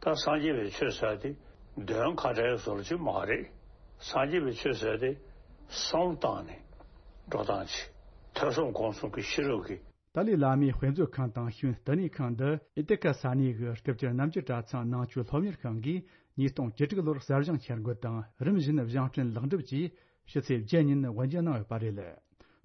ད་སངས་རྒྱས་པའི་ཆོས་ཟེར་དེ་འདོན་ཁ་བྲལ་བཟོ་འདྲ་ཅིག་མ་རེད། སངས་རྒྱས་པའི་ཆོས་ཟེར་དེ་བསམ་བློ་བཏང་ནས་འགྲོ་སྟངས་ཅིག། ཐོས་བསམ་སྒོམ་གསུམ་གྱི་ཤེས་རབ་ཀྱི། ཏཱ་ལའི་བླ་མའི་དཔེ་མཛོད་ཁང་དང་ཤེས་ཡོན་བསྟི་གནས་ཁང་འདི་ཨེ་ཐི་ཀ་ས་གནས་ཀྱི་སྐུ་བཅར་རྣམ་འགྱུར་གྲྭ་ཚང་ནང་ཆོས་སློབ་གཉེར་ཁང་གིས་ཉིས་སྟོང་བཅུ་དྲུག་ལོར་གསར་བཞེངས་འཆར་འགོད་དང་རིམ་བཞིན་བཞེངས་སྐྲུན་ལེགས་འགྲུབ་ཀྱིས་ཕྱི་ཚེས་བརྒྱད་ཉིན་དབུ་འབྱེད་གནང་ཡོད་པ་རེད།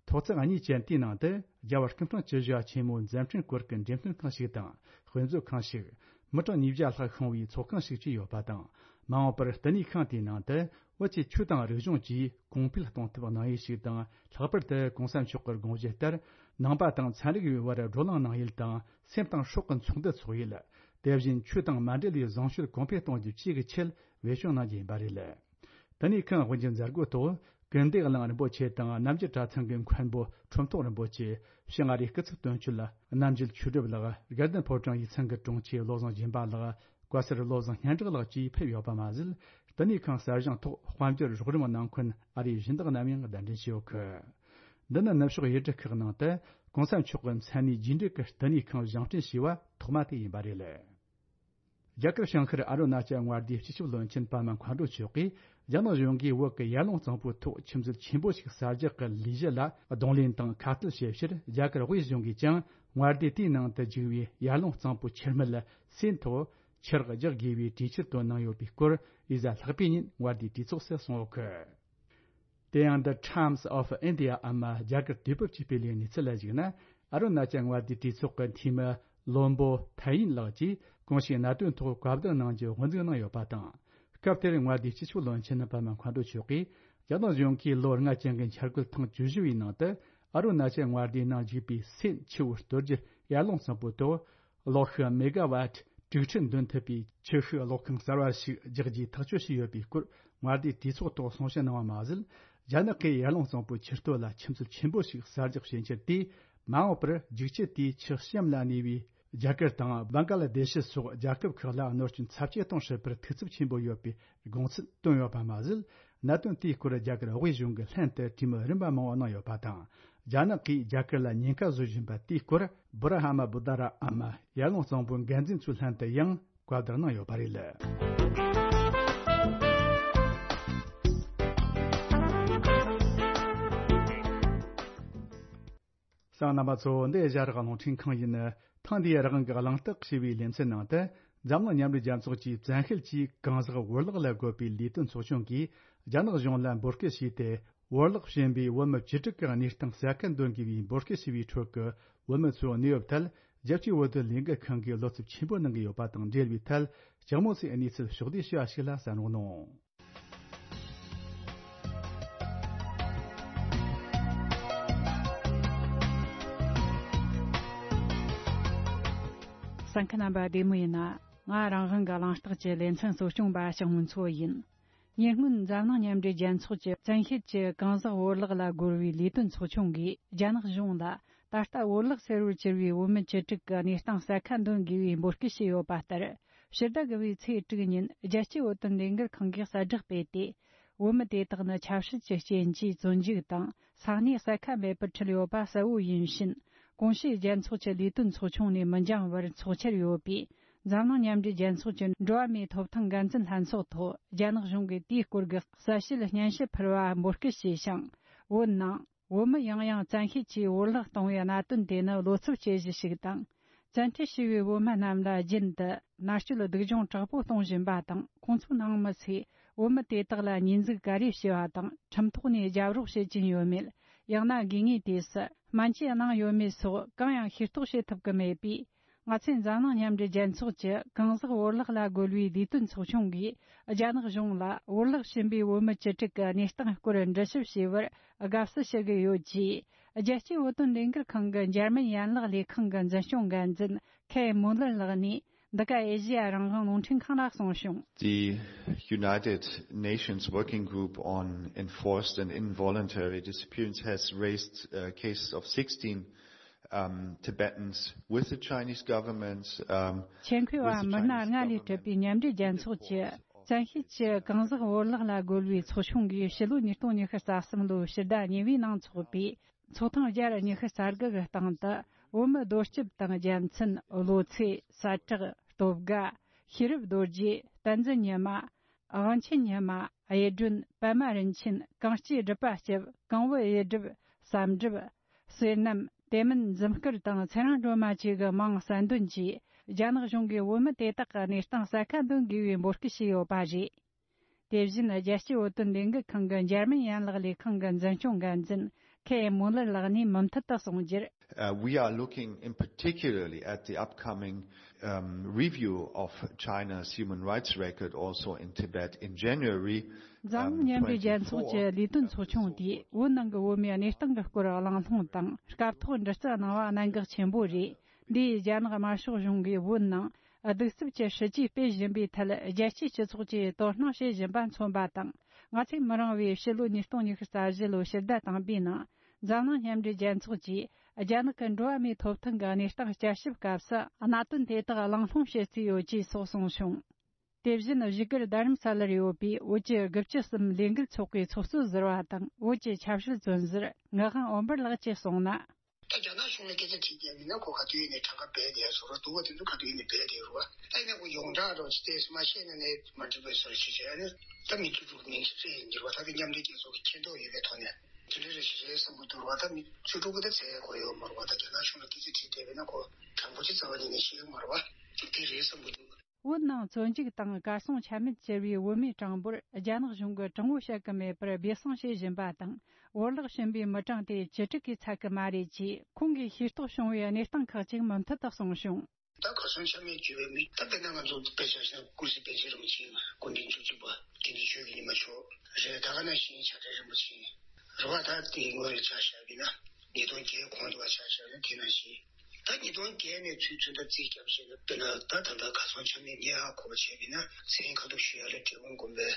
ཐོག་བརྩེགས་གཉིས་ཅན་དེའི་ནང་དུ་རྒྱལ་བ་སྐུ་ཕྲེང་བཅུ་བཞི་པ་ཆེན་མོའི་མཛད་འཕྲིན་སྐོར་གྱི་འགྲེམས་སྟོན་ཁང་ཞིག་དང་དཔེ་མཛོད་ཁང་ཞིག། མི་གྲངས་ཉིས་བརྒྱ་ལྷག་ཤོང་བའི་ཚོགས་ཁང་ཞིག་བཅས་ཡོད་པ་དང་། མ་འོངས་པར་བསྟི་གནས་ཁང་དེའི་ནང་དུ་བོད་ཀྱི་ཆོས་དང་རིག་གཞུང་བཅས་གོང་འཕེལ་གཏོང་ཐབས་གནང་ཡུལ་ཞིག་དང་། ལྷག་པར་དུ་༸གོང་ས་མཆོག་གི་དགོངས་བཞེད་ལྟར་ནང་པ་དང་ཚན་རིག་པའི་བར་བགྲོ་གླེང་གནང་ཡུལ་དང་། སེམས་དང་སྲོག་གི་ཚོགས་འདུ་འཚོགས་ཡུལ། དེ་བཞིན་ཆོས་དང་མ་འབྲེལ་བའི་བཟང་སྤྱོད་གོང་འཕེལ་གཏོང་རྒྱུ་བཅས་ཀྱི་ཆེད་བེད་སྤྱོད་གནང་རྒྱུ་ཡིན་པ་རེད། བསྟི་གནས་ཁང་དབུ་འབྱེད་མཛད་སྒོའི་ཐོག་ཀུན་བདེ་གླིང་རིན་པོ་ཆེ་དང་རྣམ་རྒྱལ་གྲྭ་ཚང་གི་མཁན་པོ་ཁྲོམ་ཐོག་རིན་པོ་ཆེ། ཕྱི་ང་རིའི་སྐུ་ཚབ་དོན་གཅོད་ལ་རྣམ་རྒྱལ་ཆོས་སྒྲུབ་ལགས། དགའ་ལྡན་ཕོ་བྲང་ཡིག་ཚང་གི་དྲུང་ཆེ་བློ་བཟང་སྦྱིན་པ་ལགས། བཀའ་ཟུར་བློ་བཟང་སྙན་གྲགས་ལགས་བཅས་ཕེབས་ཡོད་པ་མ་ཟད། བསྟི་གནས་ཁང་གསར་བཞེངས་ཐོག་དཔལ་འབྱོར་རོགས་རམ་གནང་མཁན་ཨ་རིའི་སྦྱིན་བདག་རྣམས་ཡང་གདན་འདྲེན་བྱས་ཡོད་གི། འདི་ནི་ནུབ་ཕྱོགས་ཡུལ་གྲུ་ཁག་ནང་དུ་གོང་ས་མཆོག་གི་མཚན་གནས་རྒྱས་འབྲས་ཀྱི་བསྟི་གནས་ཁང་བཞེངས་སྐྲུན་བྱས་པ་ཐོག་མ་དེ་ཡིན་པ་རེད། རྒྱ་གར་བྱང་ཤར་ཨ་རུ་ན་ཅལ་མངའ་སྡེའི་སྤྱི་ཁྱབ་བློན་ཆེན་པདྨ་མཁའ་འགྲོ་མཆོག་གིས་རྒྱ་ནག་གཞུང་གིས་བོད་ཀྱི་ཡར་ཀླུང་གཙང་པོའི་ཐོག་ཆུ་མཛོད་ཆེན་པོ་ཞིག་གསར་རྒྱག་གི་ལས་གཞི་ལ་གདོང་ལེན་དང་ཁ་གཏད་བྱེད་ཕྱིར། རྒྱ་གར་དབུས་གཞུང་གིས་ཀྱང་མངའ་སྡེ་དེའི་ནང་དུ་བཅུག་པའི་ཡར་ཀླུང་གཙང་པོའི་ཆུ་སྨད་ལ་སོན་ཐོག་ཆུ་རགས་རྒྱག་དགོས་པའི་གྲོས་ཆོད་བཏོན་གནང་ཡོད་པའི་སྐོར་ཡུལ་གཟའ་ལྷག་པའི་ཉིན་མངའ་སྡེའི་གྲོས་ཚོགས་སུ་གསུངས་ཡོད་གི། དེ་ཡང་The Times of India འམ་རྒྱ་གར་དུས་བབ་ཀྱི་སྤེལ་བའི་གནས་ཚུལ་ལ་གཞིགས་ན། ཨ་རུ་ན་ཅལ་མངའ་སྡེའི་གྲོས་ཚོགས་ཀྱི་འཐུས་མི་བློན་པོ་ཐའེ་ཡིན་ལགས་ཀྱིས་གོང་ཞུས་གནད་དོན་ཐོག་བཀའ་བསྡུར་གནང་རྒྱུ་དབུ་འཛུགས་གནང་ཡོད་པ་དང་། སྐབས་དེར་མངའ་སྡེའི་སྤྱི་ཁྱབ་བློན་ཆེན་པདྨ་མཁའ་འགྲོ་མཆོག་གིས། རྒྱ་ནག་གཞུང་གིས་ལོ་ལྔ་ཅན་གྱི་འཆར་འགོད་ཐེངས་བཅུ་བཞི་བའི་ནང་དུ། ཨ་རུ་ན་ཅལ་མངའ་སྡེའི་ནང་འཇུག་པའི་སོན་ཆུ་བོ་གཏོར་རྒྱུ་ཡར་ཀླུང་གཙང་པོའི་ཐོག་གློག་ཤུགས་མེ་ག་ཝཊ་དྲུག་ཁྲི་འདོན་ཐུབ་པའི་ཆུ་ཤུགས་གློག་ཁང་གསར་བ་ཞིག་རྒྱག་རྒྱུའི་ཐག་གཅོད་བྱས་ཡོད་པའི་སྐོར་མངའ་སྡེའི་གྲོས་ཚོགས་ཐོག་གསུང་བཤད་གནང་བ་མ་ཟད། རྒྱ་ནག་གིས་ཡར་ཀླུང་གཙང་པོའི་ཆུ་སྟོད་ལ་ཆུ་མཛོད་ཆེན་པོ་ཞིག་གསར་རྒྱག་བྱེད་འཆར་དེས། མ་འོངས་པར་རྒྱུག་ཆུ་དེས་ཆུ་གཤམ་ལ་གནས་པའི་རྒྱ་གར་དང་བང་ཀ་ལ་དེ་ཤི་སོགས་རྒྱལ་ཁབ་ཁག་ལ་གནོད་སྐྱོན་ཚབས་ཆེ་གཏོང་སྲིད་པར་ཐུགས་འཚབ་ཆེན་པོ་ཡོད་པའི་དགོངས་ཚུལ་བཏོན་ཡོད་པ་མ་ཟད། གནད་དོན་དེའི་སྐོར་རྒྱ་གར་དབུས་གཞུང་གི་ལྷན་དུ་གྲོས་མོལ་རིམ་པ་མང་བོ་གནང་ཡོད་པ་དང་། རྒྱ་ནག་གིས་རྒྱ་གར་ལ་ཉེན་ཁ་བཟོ་བཞིན་པ་དེའི་སྐོར་བྷུ་ར་ཧ་མ་བུ་དྷ་ར་འམ་ཡར་ཀླུང་གཙང་པོའི་འགན་འཛིན་ཚོའི་ལྷན་དུ་ཡང་བཀའ་བསྡུར་གནང་ཡོད་པ་རེད། གསན་མཁན་རྣམ་པ་ཚོ། འདི་ཨེ་ཤ་ཡ་རང་དབང་རླུང་འཕྲིན་ཁང་ཡིན། ཐེངས་འདིའི་རང་དབང་གི་གླེང་སྟེགས་ཞེས་པའི་ལེ་ཚན་ནང་དུ། འཛམ་གླིང་མཉམ་འབྲེལ་རྒྱལ་ཚོགས་ཀྱིས་བཙན་ཤེད་ཀྱིས་གང་ཟག་བོར་བརླག་ལ་རྒོལ་བའི་ལས་དོན་ཚོགས་ཆུང་གིས་རྒྱ་ནག་གཞུང་ལ་འབོད་སྐུལ་བྱས་ཏེ། བོར་བརླག་བྱིན་པའི་བོད་མི་བཅུ་དྲུག་གི་གནས་སྟངས་གསལ་ཁ་འདོན་དགོས་པའི་འབོད་སྐུལ་ཞུ་བའི་ཁྲོད་ཀྱི་བོད་མི་ཚོའི་གནས་བབ་ཐད། རྒྱལ་སྤྱིའི་བོད་དོན་ལས་འགུལ་ཁང་གིས་བློ་འཚབ་ཆེན་པོ་གནང་གི་ཡོད་པ་དང་འབྲེལ་བའི་ཐད། ལྕགས་མོ་སེའི་གནས་ཚུལ་ཕྱོགས་བསྡུས་ཞུ་བ་ཞིག་ལ་གསན་རོགས་གནང་། གསན་མཁན་རྣམ་པ་བདེ་མོ་ཡིན་ན། ང་རང་དབང་གི་གླེང་སྟེགས་ཀྱི་ལེ་ཚན་གཙོ་སྐྱོང་པ་ཞང་མུན་མཚོ་ཡིན། ཉེ་སྔོན་འཛམ་གླིང་མཉམ་འབྲེལ་རྒྱལ་ཚོགས་ཀྱི་བཙན་ཤེད་ཀྱིས་གང་ཟག་བོར་བརླག་ལ་རྒོལ་བའི་ལས་དོན་ཚོགས་ཆུང་གིས་རྒྱ་ནག་གཞུང་ལ། ད་ལྟ་བོར་བརླག་ཟེར་བར་གྱུར་བའི་བོད་མི་བཅུ་དྲུག་གི་གནས་སྟངས་གསལ་ཁ་འདོན་དགོས་པའི་འབོད་སྐུལ་བྱས་ཡོད་པ་ལྟར། ཕྱི་ཟླ་དགུ་པའི་ཚེས་དྲུག་ཉིན་རྒྱལ་སྤྱིའི་བོད་དོན་ལས་འགུལ་ཁང་གིས་གསལ་བསྒྲགས་སྤེལ་ཏེ། བོད་མི་དེ་དག་ནི་ཆབ་སྲིད་ཀྱི་རྐྱེན་གྱིས་བཙོན་འཇུག་དང་ས་གནས་གསལ་ཁ་མེད་པར་ཁྲིད་ཡོད་པ་གསལ་བོ་ཡིན་ཕྱིན། གོང་ཞུས་རྒྱལ་ཚོགས་ཀྱི་ལས་དོན་ཚོགས་ཆུང་ནས་མི་འགྱངས་པར་ཚོགས་འཆར་ཡོད་པའི་འཛམ་གླིང་མཉམ་འབྲེལ་རྒྱལ་ཚོགས་ཀྱི་འགྲོ་བ་མིའི་ཐོབ་ཐང་འགན་འཛིན་ལྷན་ཚོགས་ཐོག་རྒྱ་ནག་གཞུང་གིས་དེའི་སྐོར་གྱི་གསལ་བཤད་སྙན་ཞུ་ཕུལ་བ་འབོད་སྐུལ་བྱས་ཤིང་། བོད་ནང་བོད་མི་ཡང་ཡང་བཙན་ཤེད་ཀྱིས་བོར་བརླག་གཏོང་བའི་གནད་དོན་དེ་ནི་བློ་འཚབ་བྱེད་གཞི་ཞིག་དང་། བཙན་ཁྲིད་བྱས་པའི་བོད་མི་རྣམས་ལ་རྒྱུན་དུ་མནར་གཅོད་སྡུག་སྦྱོང་དྲག་པོ་གཏོང་བཞིན་པ་དང་། ཁོང་ཚོའི་ནང་མི་ཚོས་བོད་མི་དེ་དག་ལ་ཉེས་འཛུགས་ག་རེ་བྱས་པ་དང་། ཁྲིམས་ཐོག་ནས་རྒྱབ་རོགས་བྱེད་ཀྱིན་ཡོད་མེད། ཡང་ན་དགོས་ངེས་དུས་སུ་སྨན་བཅོས་གནང་ཡོད་མེད་སོགས་གང་ཡང་ཤེས་རྟོགས་བྱེད་ཐུབ་ཀྱི་མེད་པས། ང་ཚོས་འཛམ་གླིང་མཉམ་འབྲེལ་རྒྱལ་ཚོགས་ཀྱི་གང་ཟག་བོར་བརླག་ལ་རྒོལ་བའི་ལས་དོན་ཚོགས་ཆུང་གིས་རྒྱ་ནག་གཞུང་ལ་བོར་བརླག་ཕྱིན་པའི་བོད་མི་བཅུ་དྲུག་གི་གནས་སྟངས་སྐོར་འདྲི་ཞིབ་བྱས་པར་དགའ་བསུ་ཞུ་གི་ཡོད་ཅེས། རྒྱལ་སྤྱིའི་བོད་དོན་ལས་འགུལ་ཁང་གི་འཇར་མན་ཡན་ལག་ལས་ཁང་གི་འཛིན་སྐྱོང་འགན་འཛིན་ཁེ་མུ་ལར་ལགས་ནས། འདི་ག་ཨེ་ཤེ་ཡ་རང་དབང་རླུང་འཕྲིན་ཁང་ལ་གསུངས་བྱུང་། The United Nations Working Group on Enforced and Involuntary Disappearance has raised, uh, cases of sixteen, um, Tibetans with the Chinese government, um, མཆན་འཁོད་པ་མི་སྣ་ལྔ་ལས་གྲུབ་པའི་མཉམ་འབྲེལ་རྒྱལ་ཚོགས་ཀྱི་བཙན་ཤེད་ཀྱིས་གང་ཟག་བོར་བརླག་ལ་རྒོལ་བའི་ཚོགས་ཆུང་གིས་ཕྱི་ལོ་ཉིས་སྟོང་ཉི་ཤུ་རྩ་གསུམ་ལོའི་ཕྱི་ཟླ་གཉིས་པའི་ནང་འཚོགས་པའི་ཚོགས་ཐེངས་བརྒྱ་ཉི་ཤུ་རྩ་དགུ་གི་སྟེང་དུ། བོད་མི་རྡོ་སྐྱིབས་དང་རྒྱལ་མཚན། བློ་ཚེ། ས་བྲག་སྟོབས་དགའ། ཤེས་རབ་རྡོ་རྗེ། བསྟན་འཛིན་ཉི་མ། དབང་ཆེན་ཉི་མ། གཡུ་སྒྲོན། པདྨ་རིན་ཆེན། གངས་སྐྱེས་སྒྲུབ་པ་སྐྱབས། གང་བུ་གཡུ་སྒྲུབ། བསམ་གྲུབ། བསོད་ནམས། དེ་མིན་འཛུམ་དཀར་དང་ཚེ་རིང་སྒྲོལ་མ་བཅས་ཀྱི་མིང་གསལ་འདོན་གྱིས། རྒྱ་ནག་གཞུང་གིས་བོད་མི་དེ་དག་གི་གནས་སྟངས་གསལ་ཁ་འདོན་དགོས་པའི་འབོད་སྐུལ་བྱས་ཡོད་པ་རེད། དེ་བཞིན་རྒྱལ་སྤྱིའི་བོད་དོན་ལས་འགུལ་ཁང་གི་འཇར་མན་ཡན་ལག་ལས་ཁང་གི་འཛིན་སྐྱོང་འགན་འཛིན་ཁེ་མུ་ལར་ལགས་ནས་མུ་མཐུད་དུ་གསུངས་རྒྱུར། Uh, we are looking in particularly at the upcoming, um, review of China's human rights record also in Tibet in January, འཛམ་གླིང་མཉམ་འབྲེལ་རྒྱལ་ཚོགས་ཀྱི་ལས་དོན་ཚོགས་ཆུང་དེས་བོད་ནང་གི་བོད་མིའི་གནས་སྟངས་ཀྱི་སྐོར་གླེང་སློང་དང་སྐབས་ཐོག་འདྲི་རྩད་གནང་བ་གནད་འགག་ཆེན་པོ་རེད། འདིས་རྒྱ་ནག་དམར་ཤོག་གཞུང་གིས་བོད་ནང་གདུག་རྩུབ་ཀྱི་སྲིད་ཇུས་སྤེལ་བཞིན་པའི་ཐད་རྒྱལ་སྤྱིའི་སྤྱི་ཚོགས་ཀྱིས་དོ་སྣང་བྱེད་བཞིན་པ་མཚོན་པ་དང་། ང་ཚོས་མི་རིང་བའི་ཕྱི་ལོ་ཉིས་སྟོང་ཉི་ཤུ་རྩ་བཞི་ལོའི་ཕྱི་ཟླ་དང་པོའི་ནང་འཛམ་གླིང་མཉམ་འབྲེལ་རྒྱལ་ཚོགས་ཀྱིས་རྒྱ་ནག་གི་འགྲོ་བ་མིའི་ཐོབ་ཐང་གི་གནས་སྟངས་བསྐྱར་ཞིབ་སྐབས་སུ་གནད་དོན་དེ་དག་གླེང་སློང་བྱེད་རྩིས་ཡོད་ཅེས་སོགས་གསུངས་བྱུང་། དེ་བཞིན་བཞུགས་སྒར་རྡ་རམ་ས་ལར་ཡོད་པའི་བོད་ཀྱི་དགུ་བཅུ་གསུམ་ལས་འགུལ་ཚོགས་པའི་ཚོགས་གཙོ་ཟུར་པ་དང་བོད་ཀྱི་ཆབ་སྲིད་བཙོན་ཟུར་ངག་དབང་འོད་འབར་ལགས་ཀྱིས་གསུངས་ན། ད་རྒྱ་ནག་གཞུང་ལ་སྐད་ཆ་དྲིས་ཀྱང་མིན་ན་ཁོ་ག་དུས་ཡིན་ནའི་གྲངས་ཀ་སྦས་བསྡད་སོ་ར་འདུག་བ། དེ་ཚོ་ག་དུས་ཡིན་ནའི་སྦས་བསྡད་རུ་བ། ད་ཡིན་ན་ཁོ་ཡོངས་གྲགས་རོགས་ཅི་ཏེ་སུ་མ་ཤེས་ན་ནས་མ་འགྲིག་པའི་སོ་ར་ཞིག་བྱས་ནས་ད་མི་ཚུགས་འགྲུག་མིན་ཞིག་རེད་འགྱུར་བ། ད་དེ་མཉམ་འབྲེལ་རྒྱལ་ཚོགས་ཀྱི་མཁྱེན་རྟོགས་ཡོད་པའི་ཐོག་ནས་དེ་འདྲ་རེ་ཞིག་རེད་བསམ་གྱི་འདུག་ར་བ། ད་མི་ཚུགས་འགྲུག་གི་ད་ཚད་གོ་ཡོད་མ་རུ་བ། ད་རྒྱ་ནག་གཞུང་ལ་སྐད་ཆ་དྲིས་བསྡད་པས་ན་ཁོ་དྲང་པོ་ཅིག་རྩ་བ་ཉིད་ནས་ཤེས་ཡོད་མ་རུ་བ། ཅིག་དེ་རེད་བསམ་གྱི་འདུག་བོད་ནང་བཙོན་འཇུག་དང་གར་སོང་ཆ་མེད་གྱུར་བའི་བོད་མིའི་གྲངས་འབོར་རྒྱ་ནག་གཞུང་གིས་དྲང་བོ་བཤད་ཀྱི་མེད་པར་སྦས་གསང་བྱེད་བཞིན་པ་དང་། བོར་བརླག་ཕྱིན་པའི་མི་གྲངས་དེ་བཅུ་དྲུག་གིས་ཚད་ཀྱི་མ་རེད་ཅེས་ཁོང་གིས་ཤེས་རྟོགས་བྱུང་བའི་གནས་སྟངས་ཁག་ཅིག་མུ་མཐུད་དུ་གསུངས་བྱུང་། ད་གར་སོང་ཆ་མེད་གྱུར་བའི་མི་ད་དཔེར་ན་ང་ཚོ་དཔེ་ཆ་བཞག་ན་ཀུན་གཟིགས་པཎ་ཆེན་རིན་པོ་ཆེ་སྐུ་ཕྲེང་བཅུ་གཅིག་པ་དགེ་འདུན་ཆོས་ཀྱི་ཉི་མ་མཆོག་རེད། ད་ག་ནང་བཞིན་བྱ་བྲལ་རིན་པོ་ཆེ་རེད་བ། ད་དེའི་སྔོན་ལ་ཆ་བཞག་པ་ཡིན་ན་ཉིས་སྟོང་བརྒྱད་གོང་དུ་བ་ཆ་བཞག་ན་དེ་ནང་བཞིན། ད་ཉིས་སྟོང་བརྒྱད་ནས་ཚུར་ཚུར་ད་རྩིས་རྒྱབ་བྱས་ན་དཔེར་ན་ད་ད་ལྟ་གར་སོང་ཆ་མེད་ངས་ཧ་གོ་བ་བྱས་པ་ཡིན་ན་མཚན་ཁ་ཐུག་ཞུ་ཡ་ལ་འབྲས་སྤུངས་དགོན་པའི་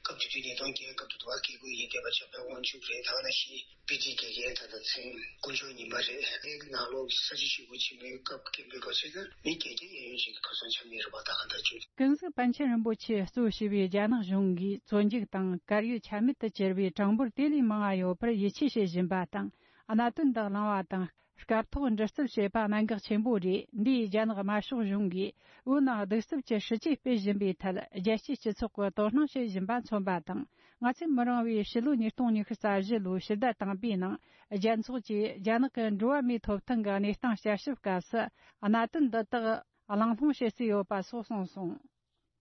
སྐབས་དེ་དུས་ཉིས་སྟོང་བརྒྱད་སྐབས་དུ་དུ་བ་སྐྱེ་དགུ་ཡིན་བསྡད་པ་བྱ་བའི་དབང་ཕྱུག་རེད། ད་ག་ནང་བཞིན་པི་ཏི་དགེ་རྒན་ད་ལྟ་མཚན་དཀོན་མཆོག་ཉི་མ་རེད། ངའི་ནང་ལོགས་ས་ཆ་ཞིག་གུ་ཆེན་པོའི་སྐབས་རྒན་པའི་སྐབས་ཟེར་ན་མི་བརྒྱད་བརྒྱ་གཡས་གཡོན་ཅིག་གི་གར་སོང་ཆ་མེད་རེད་བ། ད་ག་ད་ཅུ། ཀུན་གཟིགས་པཎ་ཆེན་རིན་པོ་ཆེ་གཙོ་བྱས་པའི་རྒྱ་ནག་གཞུང་གིས་བཙོན་འཇུག་དང་བཀར་ཡོད་ཆ་མེད་དུ་གྱུར་བའི་གྲངས་འབོར་དེ་ལས་མང་བ་ཡོད་པར་ཡིད་ཆེས་བྱེད་བཞིན་པ་དང་། གནད་དོན་འདི་གླེང་བ་དང་། སྐབས་ཐོག་འདྲི་རྩད་བྱེད་པ་གནད་འགག་ཆེན་པོ་རེད། འདིས་རྒྱ་ནག་དམར་ཤོག་གཞུང་གིས་བོད་ནང་གདུག་རྩུབ་ཀྱི་སྲིད་ཇུས་སྤེལ་བཞིན་པའི་ཐད་རྒྱལ་སྤྱིའི་སྤྱི་ཚོགས་ཀྱིས་དོ་སྣང་བྱེད་བཞིན་པ་མཚོན་པ་དང་། ང་ཚོས་མི་རིང་བའི་ཕྱི་ལོ་ཉིས་སྟོང་ཉི་ཤུ་རྩ་བཞི་ལོའི་ཕྱི་ཟླ་དང་པའི་ནང་རྒྱལ་ཚོགས་ཀྱིས་རྒྱ་ནག་གི་འགྲོ་བ་མིའི་ཐོབ་ཐང་གི་གནས་སྟངས་དཔྱད་ཞིབ་སྐབས་སུ་གནད་དོན་འདི་དག་གླེང་སློང་བྱེད་རྩིས་ཡོད་པ་སོགས་གསུངས་སོང་།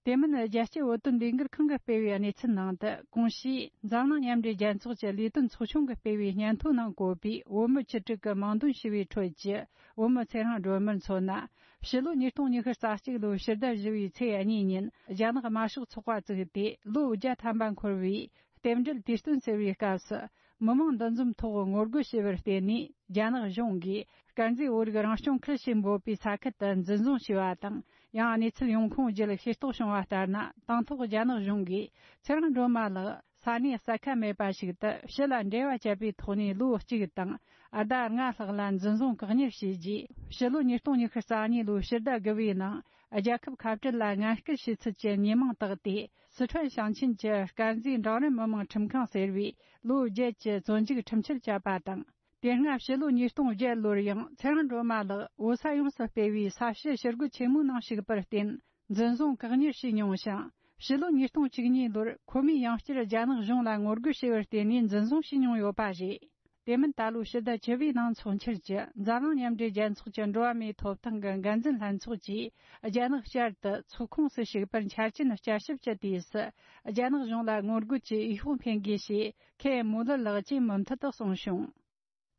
དེ་མིན་རྒྱལ་སྤྱིའི་བོད་དོན་ལས་འགུལ་ཁང་གིས་སྤེལ་བའི་གནས་ཚུལ་ནང་དུ། གོང་ཞུས་འཛམ་གླིང་མཉམ་འབྲེལ་རྒྱལ་ཚོགས་ཀྱི་ལས་དོན་ཚོགས་ཆུང་གིས་སྤེལ་བའི་སྙན་ཐོ་ནང་བཀོད་པའི་བོད་མི་བཅུ་དྲུག་གི་མིང་འདོན་ཞུས་པའི་ཁྲོད་ཀྱི་བོད་མི་ཚེ་རིང་སྒྲོལ་མར་མཚོན་ན། ཕྱི་ལོ་ཉིས་སྟོང་ཉི་ཤུ་རྩ་གཅིག་ལོའི་ཕྱི་ཟླ་བཞི་པའི་ཚེས་གཉིས་ཉིན་རྒྱ་ནག་དམར་ཤོག་ཚོགས་པ་བཙུགས་ཏེ་ལོ་བརྒྱ་ཐམ་པ་འཁོར་བའི་རྟེན་འབྲེལ་དུས་སྟོན་ཟེར་བའི་སྐབས་སུ། མི་མང་འདུ་འཛོམས་ཐོག་ངོ་རྒོལ་བྱས་པར་བརྟེན་ནས། རྒྱ་ནག་གཞུང་གིས་དཀར་མཛེས་བོད་རིགས་རང་སྐྱོང་ཁུལ་ཞེས་འབོད་པའི་ས་ཁུལ་དུ་འཛིན་བཟུང་བྱས་པ་དང་། ཡང་གནས་ཚུལ་ཡོང་ཁུངས་བརྒྱུད་ཤེས་རྟོགས་བྱུང་བ་ལྟར་ན། དང་ཐོག་རྒྱ་ནག་གཞུང་གིས་ཚེ་རིང་སྒྲོལ་མ་ལགས་ས་གནས་གསལ་ཁ་མེད་པ་ཞིག་ཏུ་ཕྱི་ལ་འབྲེལ་བ་བཅད་པའི་ཐོག་ནས་ལོ་གཅིག་དང་ཟླ་ལྔ་ལྷག་ལ་འཛིན་བཟུང་བཀག་ཉར་བྱས་རྗེས། ཕྱི་ལོ་ཉིས་སྟོང་ཉི་ཤུ་རྩ་གཉིས་ལོའི་ཕྱི་ཟླ་དགུ་པའི་ནང་རྒྱལ་ཁབ་ཁ་བྲལ་ལ་ངན་སྐུལ་བྱས་ཚུལ་གྱི་ཉེས་མིང་བཏགས་ཏེ། སི་ཁྲོན་ཞིང་ཆེན་གྱི་དཀར་མཛེས་འབྲིང་རིམ་མི་དམངས་ཁྲིམས་ཁང་ཟེར་བས་ལོ་བརྒྱད་ཀྱི་བཙོན་འཇུག་ཁྲིམས་ཆད་བཅད་པ་དང་། དེ་སྔ་ཕྱི་ལོ་ཉིས་སྟོང་བརྒྱད་ལོར་ཡང་ཚེ་རིང་སྒྲོལ་མ་ལགས་བོད་ས་ཡོངས་སུ་སྤེལ་བའི་ས་བྱི་ཞི་རྒོལ་ཆེན་མོའི་ནང་ཞུགས་པར་བརྟེན་འཛིན་བཟུང་བཀག་ཉར་བྱས་མྱོང་ཞིང་། ཕྱི་ལོ་ཉིས་སྟོང་བཅུ་གཉིས་ལོར་ཁོ་མོས་ཡང་བསྐྱར་རྒྱ་ནག་གཞུང་ལ་ངོ་རྒོལ་བྱས་པར་བརྟེན་ནས་འཛིན་བཟུང་བྱས་མྱོང་ཡོད་པ་རེད། དེ་མིན་ད་ལོའི་ཕྱི་ཟླ་བཅུ་པའི་ནང་ཚོགས་འཆར་གྱི་འཛམ་གླིང་མཉམ་འབྲེལ་རྒྱལ་ཚོགས་ཀྱི་འགྲོ་བ་མིའི་ཐོབ་ཐང་གི་འགན་འཛིན་ལྷན་ཚོགས་ཀྱིས་རྒྱ་ནག་བསྐྱར་དུ་ཚོགས་ཁོངས་སུ་ཞུགས་པར་འཆར་ཅན་བསྐྱར་ཞིབ་ཀྱི་དུས་སུ། རྒྱ་ནག་གཞུང་ལ་ངོ་རྒོལ་གྱི་འོས་ཤོག་འཕེན་དགོས་ཞེས་ཁེ་མུ་ལར་ལགས་ཀྱིས་མུ་མཐུད་དུ་གསུངས་བྱུང་།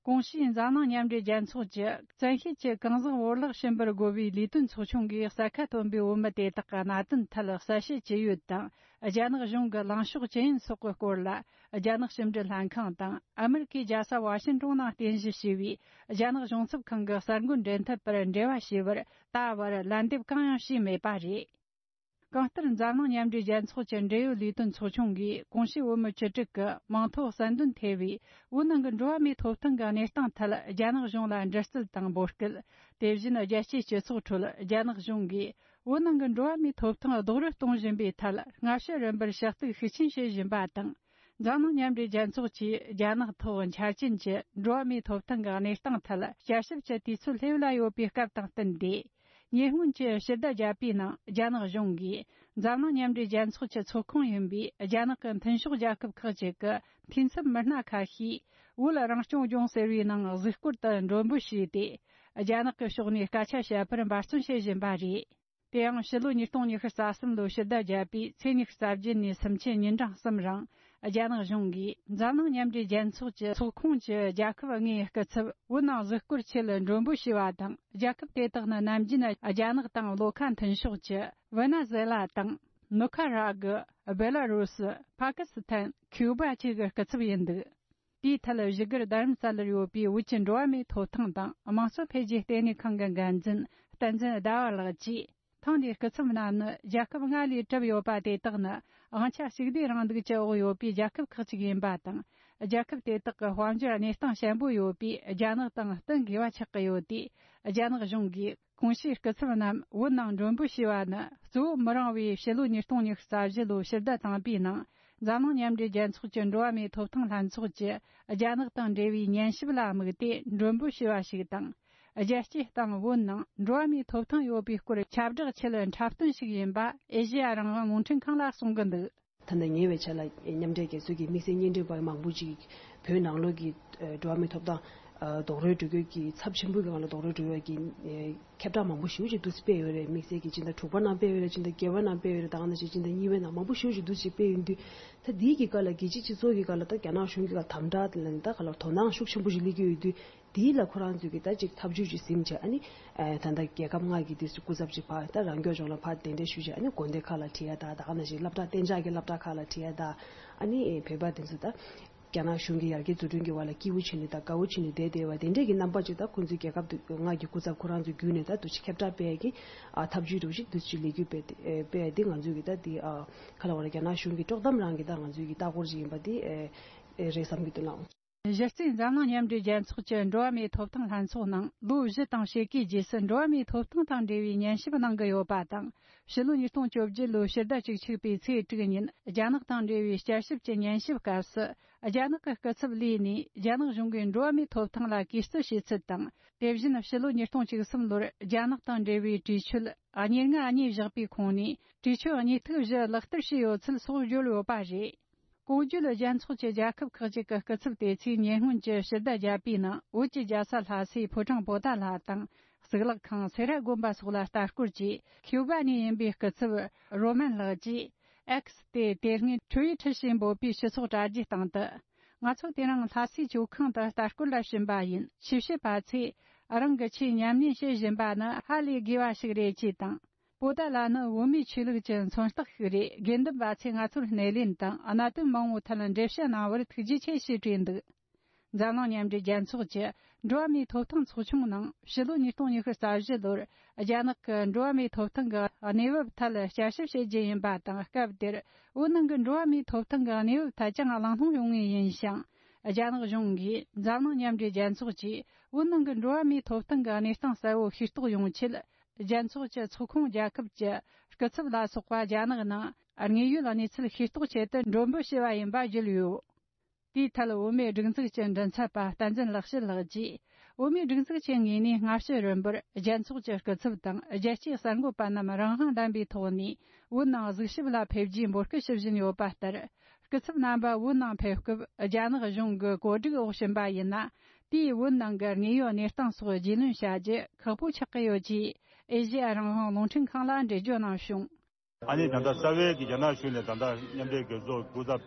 གོང་ཞུས་འཛམ་གླིང་མཉམ་འབྲེལ་རྒྱལ་ཚོགས་ཀྱི་བཙན་ཤེད་ཀྱིས་གང་ཟག་བོར་བརླག་བྱིན་པར་རྒོལ་བའི་ལས་དོན་ཚོགས་ཆུང་གིས་གསལ་ཁ་བཏོན་པའི་བོད་མི་དེ་དག་གི་གནད་དོན་ཐད་གསལ་བཤད་ཅི་ཡོད་དང་། རྒྱ་ནག་གཞུང་གི་ལངས་ཕྱོགས་ཅི་ཡིན་སོགས་ཀྱི་སྐོར་ལ། རྒྱ་ནག་ཕྱི་འབྲེལ་ལྷན་ཁང་དང་ཨ་མེ་རི་ཁའི་རྒྱལ་ས་ཝ་ཤིང་ཏོན་ནང་རྟེན་གཞི་བྱས་པའི་རྒྱ་ནག་གཞུང་ཚབ་ཁང་གི་གསར་འགོད་འབྲེལ་མཐུད་པར་འབྲེལ་བ་བྱས་པར་ད་བར་ལན་འདེབས་གང་ཡང་བྱས་མེད་པ་རེད། གང་ལྟར་འཛམ་གླིང་མཉམ་འབྲེལ་རྒྱལ་ཚོགས་ཀྱི་འབྲེལ་ཡོད་ལས་དོན་ཚོགས་ཆུང་གིས་གོང་ཞུས་བོད་མི་བཅུ་དྲུག་གི་མིང་ཐོ་གསལ་འདོན་ཐེ་བའི་བོད་ནང་གི་འགྲོ་བ་མིའི་ཐོབ་ཐང་གི་གནས་སྟངས་ཐད་རྒྱ་ནག་གཞུང་ལ་འདྲི་རྩད་དང་འབོད་སྐུལ། དེ་བཞིན་རྒྱལ་སྤྱིའི་སྤྱི་ཚོགས་ཁྲོད་རྒྱ་ནག་གཞུང་གིས་བོད་ནང་གི་འགྲོ་བ་མིའི་ཐོབ་ཐང་རྡོག་རོལ་གཏོང་བཞིན་པའི་ཐད་སྔ་ཕྱི་རིམ་པར་ཞུ་གཏུག་ཤུགས་ཆེན་བྱེད་བཞིན་པ་དང་། འཛམ་གླིང་མཉམ་འབྲེལ་རྒྱལ་ཚོགས་ཀྱིས་རྒྱ་ནག་ཐོག་འཆར་ཅན་གྱི་འགྲོ་བ་མིའི་ཐོབ་ཐང་གི་གནས་སྟངས་ཐད་བསྐྱར་ཞིབ་ཀྱི་དུས་ཚོད་སླེབས་ལ་ཡོད་པའི་སྐབས་དང་བསྟུན་ཏེ། ཉེ་སྔོན་གྱི་ཕྱི་ཟླ་བརྒྱད་པའི་ནང་རྒྱ་ནག་གཞུང་གིས་འཛམ་གླིང་མཉམ་འབྲེལ་རྒྱལ་ཚོགས་ཀྱི་ཚོགས་ཁོངས་ཡིན་པའི་རྒྱ་ནག་གི་མཐུན་ཕྱོགས་རྒྱལ་ཁབ་ཁག་ཅིག་གི་འཐུས་ཚབ་མི་སྣ་ཁ་ཤས་བོད་རང་སྐྱོང་ལྗོངས་ཟེར་བའི་ནང་གཟིགས་སྐོར་དུ་མགྲོན་འབོད་བྱས་ཏེ། རྒྱ་ནག་གི་ཕྱོགས་ནས་སྐད་ཆ་བཤད་པར་འབད་བརྩོན་བྱེད་བཞིན་པ་རེད། དེ་ཡང་ཕྱི་ལོ་ཉིས་སྟོང་ཉི་ཤུ་རྩ་གསུམ་ལོའི་ཕྱི་ཟླ་བརྒྱད་པའི་ཚེས་ཉི་ཤུ་རྩ་བརྒྱད་ནས་སུམ་ཆའི་ཉིན་གྲངས་གསུམ་རིང་། རྒྱ་ནག་གཞུང་གིས་འཛམ་གླིང་མཉམ་འབྲེལ་རྒྱལ་ཚོགས་ཀྱི་ཚོགས་ཁོངས་ཀྱི་རྒྱལ་ཁབ་ལྔའི་སྐུ་ཚབ་བོད་ནང་གཟིགས་སྐོར་ཆེད་མགྲོན་འབོད་བྱས་པ་དང་། རྒྱལ་ཁབ་དེ་དག་ནི་ནམ་རྒྱུན་རྒྱ་ནག་དང་བློ་ཁ་མཐུན་ཕྱོགས་ཀྱི་ཝེ་ནེ་ཛུ་ཝེ་ལ་དང་། ནུ་ཁ་ར་གྷི། སྦེ་ལ་རུ་སི། པ་ཀི་སི་ཐན། ཁིའུ་བ་བཅས་ཀྱི་སྐུ་ཚབ་ཡིན་འདུག་དེའི་ཐད་བཞུགས་སྒར་རྡ་རམ་ས་ལར་ཡོད་པའི་བོད་ཀྱི་འགྲོ་བ་མིའི་ཐོབ་ཐང་དང་དམངས་གཙོ་འཕེལ་རྒྱས་ལྟེ་གནས་ཁང་གི་འགན་འཛིན་བསྟན་འཛིན་ཟླ་བ་ལགས་ཀྱིས། ཐེངས་འདིའི་སྐུ་ཚབ་རྣམས་ནི་རྒྱལ་ཁབ་ལྔ་ལས་གྲུབ་ཡོད་པ་དེ་དག་ནི་དབང་ཆ་གཅིག་སྡུད་རིང་ལུགས་ཀྱི་འོག་ཡོད་པའི་རྒྱལ་ཁབ་ཁག་ཅིག་ཡིན་པ་དང་ རྒྱལ་ཁབ་དེ་དག་གི་དཔལ་འབྱོར་གནས་སྟངས་ཞན་པོ་ཡོད་པས། རྒྱ་ནག་དང་བསྟུན་དགོས་པ་ཆགས་ཀྱི་ཡོད་དུས། རྒྱ་ནག་གཞུང་གིས་གོང་ཞུས་སྐུ་ཚབ་རྣམས་བོད་ནང་མགྲོན་འབོད་བྱས་པ་ནི། གཙོ་བོ་མི་རིང་བའི་ཕྱི་ལོ་ཉིས་སྟོང་ཉི་ཤུ་རྩ་བཞི་ལོའི་ཕྱི་ཟླ་དང་པའི་ནང་། འཛམ་གླིང་མཉམ་འབྲེལ་རྒྱལ་ཚོགས་ཀྱི་འགྲོ་བ་མིའི་ཐོབ་ཐང་ལྷན་ཚོགས་ཀྱིས་རྒྱ་ནག་དང་འབྲེལ་བའི་ཉན་ཞིབ་ལ་དམིགས་ཏེ་མགྲོན་འབོད་བྱས་པ་ཞིག་དང་། རྒྱལ་སྤྱིའི་སྟེང་བོད་ནང་འགྲོ་བ་མིའི་ཐོབ་ཐང་ཡོད་པའི་སྐོར་ཁྱབ་བསྒྲགས་ཆེད་འཁྲབ་སྟོན་ཞིག་ཡིན་པ་ཨེ་ཤེ་ཡ་རང་དབང་རླུང་འཕྲིན་ཁང་ལ་གསུངས་ཀྱི་འདུག། ད་ལྟ་ཉེ་བའི་ཆར་ལ་མཉམ་འབྲེལ་རྒྱལ་ཚོགས་ཀྱི་དམིགས་བསལ་བརྙན་འཕྲིན་པ་མང་པོ་ཅིག་བོད་ནང་ལོགས་ཀྱི་འགྲོ་བ་མིའི་ཐོབ་ཐང་རྡོག་རོལ་འགྲོ་རྒྱུ་གི་ཚབས་ཆེན་པོའི་སྒང་ལ་རྡོག་རོལ་འགྲོ་ཡག་གི་ཁྱབ་བསྒྲགས་མང་པོ་ཞེ་པོ་ཅིག་འདུག་སེ་སྤེལ་ཡོད་རེད། དམིགས་བསལ་གྱི་སྤྱི་ཟླ་དྲུག་པ་ནང་སྤེལ་ཡོད་རེད། སྤྱི་ཟླ་བརྒྱད་པ་ནང་སྤེལ་ཡོད་རེད། ད་ག་ནང་བཞིན་སྤྱི་ཟླ་གཉིས་པའི་ནང་མང་པོ་ཞེ་པོ་ཅིག་འདུག་སེ་སྤེལ་ཡོད་དུས། ད་འདིའི་གི་སྐབས་ལ་རྒྱལ་སྤྱིའི་སྤྱི་ཚོགས་ཀྱི་སྒང་ལ་ད་རྒྱ་ནག་གཞུང་གི་སྒང་དམ་དྲག་དེ་ལ་ནི་ད་ག་ལ་དོ་སྣང་ཤུགས་ཆེན་པོ་ཞིག་སླེབས་ཀྱི་ཡོད་དུས། དེའི་ལ་ཁོ་རང་ཚོས་ཀྱི་ད་ཅིག་ཐབས་ཇུས་ཅིག་ཟིན་བྱས། ཨ་ནི་ཨ་ད་ལྟ་རྒྱལ་ཁབ་ལྔ་གི་དུས་སུ་སྐུ་ཚབ་ཅིག་ཕར་ད་རང་སྐྱོང་ལྗོངས་ལ་ཕར་གདན་འདྲེན་ཞུས་བྱས། ཨ་ནི་དགོན་སྡེ་ཁག་ལ་ཁྲིད་ཡ་ད་ད་ག་ནང་བཞིན་སློབ་གྲྭ་གཏན་འཇགས་ཀྱི་སློབ་གྲྭ་ཁག་ལ་ཁྲིད་ཡ་ད། ཨ་ནི་བོད་པ་དེ་ཚོ་ད་རྒྱ་ནག་གཞུང་གི་ཡར་རྒྱས་འཛུགས་སྐྲུན་གྱི་བར་ལ་སྐྱིད་པོ་བྱས་ནས་ད་དགའ་བོ་བྱས་ནས་བསྡད་བསྡད་པ་དེ་འདྲས་ཀྱི་རྣམ་པ་ཅིག་ད་ཁོང་ཚོའི་རྒྱལ་ཁབ་དུ་ལྔ་གི་སྐུ་ཚབ་ཁོ་རང་ཚོས་བརྒྱུད་ནས་ད་འདུ་ཤེས་ཁྱབ་བསྒྲགས་སྤེལ་ཡ་གི་ཨ་ཐབས་ཇུས་འདྲ་བོ་ཞིག་འདུ་ཅིག་ལས་འགུལ་སྤེལ་ཏེ་སྤེལ་ཡ་དེ་ང་ཚོས་ཀྱི་ད་དེ་ཨ་ག་ལ་བ་ལ་རྒྱ་ནག་གཞུང་གི་དཀྲོག་གཏམ་རང་གི་ད་ང་ཚོའི་གི་ལྟ་སྐོར་ཅིག་ཡིན་པ་དེ་ཨེ་རེད་བསམ་གྱི་འདུག་ལགས། གཞི་རྩའི་འཛམ་གླིང་མཉམ་འབྲེལ་རྒྱལ་ཚོགས་ཀྱི་འགྲོ་བ་མིའི་ཐོབ་ཐང་ལྷན་ཚོགས་ནང་ལོ་བཞི་དང་ཕྱེད་ཀའི་རྗེས་སུ་འགྲོ་བ་མིའི་ཐོབ་ཐང་དང་འབྲེལ་བའི་ཉན་ཞིབ་གནང་གི་ཡོད་པ་དང་། ཕྱི་ལོ་ཉིས་སྟོང་བཅོ་བརྒྱད་ལོའི་ཕྱི་ཟླ་བཅུ་གཅིག་པའི་ཚེས་དྲུག་ཉིན་རྒྱ་ནག་དང་འབྲེལ་བའི་བསྐྱར་ཞིབ་ཀྱི་ཉན་ཞིབ་སྐབས་སུ། རྒྱ་ནག་གི་སྐུ་ཚབ་ལས་ནས་རྒྱ་ནག་གཞུང་གིས་འགྲོ་བ་མིའི་ཐོབ་ཐང་ལ་གུས་བརྩི་བྱེད་ཚུལ་དང་། དེ་བཞིན་ཕྱི་ལོ་ཉིས་སྟོང་བཅུ་གསུམ་ལོར་རྒྱ་ནག་དང་འབྲེལ་བའི་གྲོས་ཆོད་གཉིས་ལྔ་གཉིས་བཞག་པའི་ཁོངས་ནས་གྲོས་ཆོད་གཉིས་ཐིག་བཞི་ལག་བསྟར་བྱས་ཡོད་ཚུལ་སོགས་བརྗོད་ཡོད་པ་རེད། གོང་བརྗོད་རྒྱལ་ཚོགས་ཀྱི་རྒྱལ་ཁབ་ཁག་ཅིག་གི་སྐུ་ཚབ་དེ་ཚོས་ཉེ་སྔོན་གྱི་ཕྱི་ཟླ་བརྒྱད་པའི་ནང་བོད་ཀྱི་རྒྱལ་ས་ལྷ་སའི་ཕོ་བྲང་པོ་ཏཱ་ལ་དང་། གཙུག་ལག་ཁང་སེ་ར་དགོན་པ་སོགས་ལ་ལྟ་སྐོར་གྱིས། ཁིའུ་བ་ནས་ཡིན་པའི་སྐུ་ཚབ་རོ་མན་ལགས་ཀྱིས་ཨེགས་སྟེ་དེ་སྔའི་ཁྲུའི་ཁྲི་ཞེས་འབོད་པའི་སྤྱི་ཚོགས་དྲ་རྒྱའི་སྟེང་དུ། ང་ཚོ་དེ་རིང་ལྷ་སའི་ཇོ་ཁང་དུ་ལྟ་སྐོར་ལ་ཕྱིན་པ་ཡིན། ཆོས་བཤད་པ་ཚོས་རང་གི་ཆོས་ཉམས་ལེན་བྱེད་བཞིན་པ་ནི་ཧ་ལས་དགོས་པ་ཞིག་རེད་ཅེས་དང་། པོ་ཏཱ་ལ་ནི་བོད་མིའི་ཆོས་ལུགས་ཀྱི་མཚོན་རྟགས་ཤིག་རེད། དགེ་འདུན་པ་ཚོས་ང་ཚོར་སྣེ་ལེན་དང་གནད་དོན་མང་བོའི་ཐད་འགྲེལ་བཤད་གནང་བར་ཐུགས་རྗེ་ཆེ་ཞེས་བྲིས་འདུག། འཛམ་གླིང་མཉམ་འབྲེལ་རྒྱལ་ཚོགས་ཀྱི་འགྲོ་བ་མིའི་ཐོབ་ཐང་ཚོགས་ཆུང་ནང་ཕྱི་ལོ་ཉིས་སྟོང་ཉི་ཤུ་རྩ་བཞི་ལོར་རྒྱ་ནག་གི་འགྲོ་བ་མིའི་ཐོབ་ཐང་གི་གནས་བབ་ཐད་བསྐྱར་ཞིབ་བྱེད་རྒྱུ་ཡིན་པ་དང་། སྐབས་དེར་བོད་ནང་གི་འགྲོ་བ་མིའི་ཐོབ་ཐང་གི་གནས་བབ་ཐད་ཀྱང་གླེང་སློང་ཡོང་ངེས་ཡིན་ཞིང་། རྒྱ་ནག་གཞུང་གིས་འཛམ་གླིང་མཉམ་འབྲེལ་རྒྱལ་ཚོགས་ཀྱིས་བོད་ནང་གི་འགྲོ་བ་མིའི་ཐོབ་ཐང་གི་གནས་སྟངས་གསལ་བོ་ཤེས་རྟོགས་ཡོང་ཆེད། རྒྱལ་ཚོགས་ཀྱི་ཚོགས་ཁོངས་རྒྱལ་ཁབ་ཀྱི་སྐུ་ཚབ་ལ་སོགས་པ་རྒྱ་ནག་ནང་དངོས་ཡོད་གནས་ཚུལ་ཤེས་རྟོགས་ཆེད་དུ་མགྲོན་འབོད་བྱས་པ་ཡིན་པ་བརྗོད་ཡོད། དེའི་ཐད་བོད་མིའི་སྒྲིག་འཛུགས་ཀྱི་མགྲིན་ཚབ་པ་བསྟན་འཛིན་ལེགས་བཤད་ལགས་ཀྱིས། བོད་མིའི་སྒྲིག་འཛུགས་ཀྱི་ངོས་ནས་སྔ་ཕྱི་རིམ་པར་རྒྱལ་ཚོགས་ཀྱི་སྐུ་ཚབ་དང་རྒྱལ་སྤྱིའི་གསར་འགོད་པ་རྣམས་རང་དབང་ལྡན་པའི་ཐོག་ནས་བོད་ནང་གཟིགས་ཞིབ་ལ་ཕེབས་རྒྱུའི་འབོད་སྐུལ་ཞུ་བཞིན་ཡོད་པ་ལྟར། སྐུ་ཚབ་རྣམ་པ་བོད་ནང་ཕེབས་སྐབས་རྒྱ་ནག་གཞུང་གི་བཀོད་སྒྲིག་འོག་ཕྱིན་པ་ཡིན་ན། དེས་བོད་ནང་གི་དངོས་ཡོད་གནས་སྟངས་སོགས་རྒྱུས་ལོན་བྱ་རྒྱུ་ཁག་པོ་ཆགས་ཀྱི་ཡོད་ཅེས་ཨེ་ཤེ་ཡ་རང་དབང་རླུང་འཕྲིན་ཁང་ལ་འགྲེལ་བརྗོད་གནང་བྱུང་། ཨ་ནི་ད་ལྟ་རྩ་བའི་གི་རྒྱ་ནག་གཞུང་ནས་ད་ལྟ་མཉམ་འབྲེལ་རྒྱལ་ཚོགས་སྐུ་ཚབ་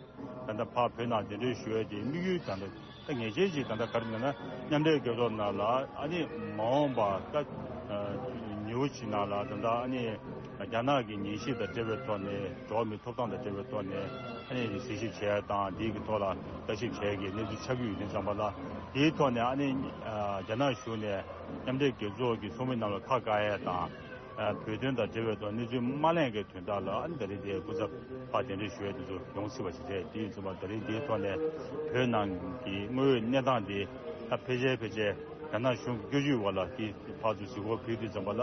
ད་ལྟ་ཕར་བོད་ནང་གདན་འདྲེན་ཞུ་ཡས་དེ་དམིགས་ཡུལ་ད་ལྟ་ད་ངེས་ཅན་ཅིག་ད་ལྟ་ག་རེ་ལབ་ན། མཉམ་འབྲེལ་རྒྱལ་ཚོགས་ནང་ལ་ཨ་ནི་མ་འོངས་པ་ད་ཉེ་བོ་ཅིག་ནང་ལ་ད་ལྟ་ཨ་ནི་རྒྱ་ནག་གི་ཉན་ཞིབ་དང་འབྲེལ་བའི་ཐོག་ནས་འགྲོ་བ་མིའི་ཐོབ་ཐང་དང་འབྲེལ་བའི་ཐོག་ནས་ཨ་ནི་གཟིགས་ཞིབ་བྱས་དང་འདིའི་གི་ཐོག་ལ་ལྟ་ཞིབ་བྱས་ཀྱི་གནས་ཚུལ་ཆགས་ཀྱི་ཡོད་དུས་ཙམ་པ་ལ། དེའི་ཐོག་ནས་ཨ་ནི་རྒྱ་ནག་གཞུང་ནས་མཉམ་འབྲེལ་རྒྱལ་ཚོགས་ཀྱི་ཚོགས་མི་རྣམས་ལ་ཁ་བཀག་ཡས་དང་། བོད་དོན་དང་འབྲེལ་བའི་ཐོག་གནས་ཚུལ་མ་གླེང་གི་དོན་དག་ལ་ཨ་ནི་ད་རེས་དེ་སྐུ་ཚབ་ཕར་གདན་འདྲེན་ཞུ་ཡས་དེ་ཚོ་ཡོང་སྲིད་པ་ཞིག་རེད། དེ་ཡིན་ཙམ་པ་ད་རེས་དེའི་ཐོག་ནས་བོད་ནང་གི་དངོས་ཡོད་གནས་སྟངས་དེ་ད་ཕལ་ཆེར་ཕལ་ཆེར་རྒྱ་ནག་གཞུང་གི་བཀོད་ཇུས་འོག་ལ་དེ་ཕར་ཚུར་གཟིགས་སྐོར་ཕུལ་དུས་ཙམ་པ་ལ་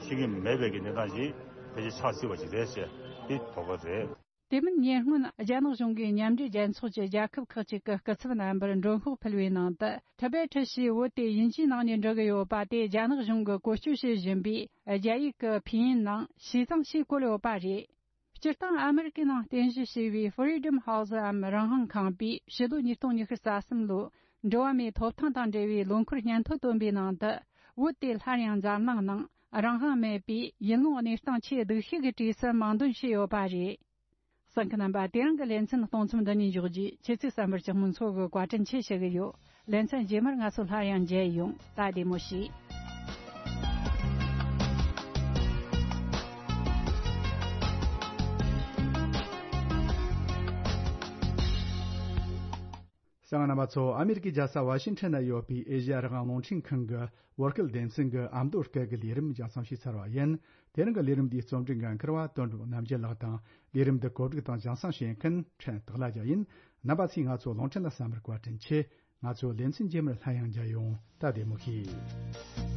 ཤེས་ཀྱི་མེད་པའི་གི་གནས་སྟངས་ཤིག་ཕལ་ཆེར་ཆགས་སྲིད་པ་ཞིག་རེད་ཟེར་དེ་དོགས་པ་རེད། དེ་མིན་ཉེ་སྔོན་རྒྱ་ནག་གཞུང་གིས་མཉམ་འབྲེལ་རྒྱལ་ཚོགས་ཀྱི་རྒྱལ་ཁབ་ཁག་ཅིག་གི་སྐུ་ཚབ་རྣམ་པར་མགྲོན་ཤོག་ཕུལ་བའི་ནང་དུ། ཊི་བེ་ཊི་ཞེས་བོད་དེ་དབྱིན་ཇིའི་ནང་ནས་འབྲི་གི་ཡོད་པ་དེ་རྒྱ་ནག་གཞུང་གིས་བཀོལ་སྤྱོད་བྱེད་བཞིན་པའི་རྒྱ་ཡིག་གི་ཕིན་ཡིན་ནང་ཞི་ཙང་ཞེས་བཀོད་ཡོད་པ་རེད། སྤྱིར་བཏང་ཨ་མེ་རི་ཀའི་ནང་རྟེན་གཞི་བྱས་པའི་Freedom House འམ་རང་དབང་ཁང་པས་ཕྱི་ལོ་ཉིས་སྟོང་ཉི་ཤུ་རྩ་གསུམ་ལོའི་འགྲོ་བ་མིའི་ཐོབ་ཐང་དང་འབྲེལ་བའི་ལོ་འཁོར་སྙན་ཐོ་བཏོན་པའི་ནང་དུ། བོད་དེ་སླར་ཡང་འཛམ་གླིང་ནང་རང་དབང་མེད་པའི་ཡུལ་ལུང་གནས་སྟངས་ཆེས་སྡུག་ཤོས་ཀྱི་གྲས་སུ་མིང་འདོན་བྱས་ཡོད་པ་རེད། གསན་མཁན་རྣམ་པ། དེ་རིང་གི་ལེ་ཚན་གཏོང་མཚམས་འདི་ནས་འཇོག་རྒྱུ། ཁྱེད་ཚོས་གསན་པར་ཇག་མོ་མཚོ་གིས་བཀའ་དྲིན་ཆེ་ཞུ་གི་ཡོད། ལེ་ཚན་རྗེས་མར་ང་ཚོ་སླར་ཡང་མཇལ་ཡོང་། ད་བདེ་མོ་བྱོས། གསན་མཁན་རྣམ་པ་ཚོ། ཨ་མེ་རི་ཀའི་རྒྱལ་ས་ཝ་ཤིང་ཊོན་ན་ཡོད་པའི་ཨེ་ཤེ་ཡ་རང་དབང་རླུང་འཕྲིན་ཁང་གི་བོད་སྐད་སྡེ་ཚན་གྱི་ཨ་མདོ་སྐད་ཀྱི་ལས་རིམ་རྒྱང་སྲིང་ཞུས་ཚར་བ་ཡིན། དེ་རིང་གི་ལས་རིམ་འདིའི་རྩོམ་སྒྲིག་འགན་འཁུར་བ་དོན་གྲུབ་རྣམ་རྒྱལ་ལགས་དང་། ལས་རིམ་འདི་གོ་སྒྲིག་དང་རྒྱང་སྲིང་བྱེད་མཁན་ཕྲན་སྟག་ལྷ་རྒྱལ་ཡིན། རྣམ་པ་ཚོས་ང་ཚོ་རླུང་འཕྲིན་ལ་གསན་པར་བཀའ་དྲིན་ཆེ། ང་ཚོ་ལེ་ཚན་རྗེས་མར་སླར་ཡང་མཇལ་ཡོང་། ད་བདེ་མོ་བྱོས།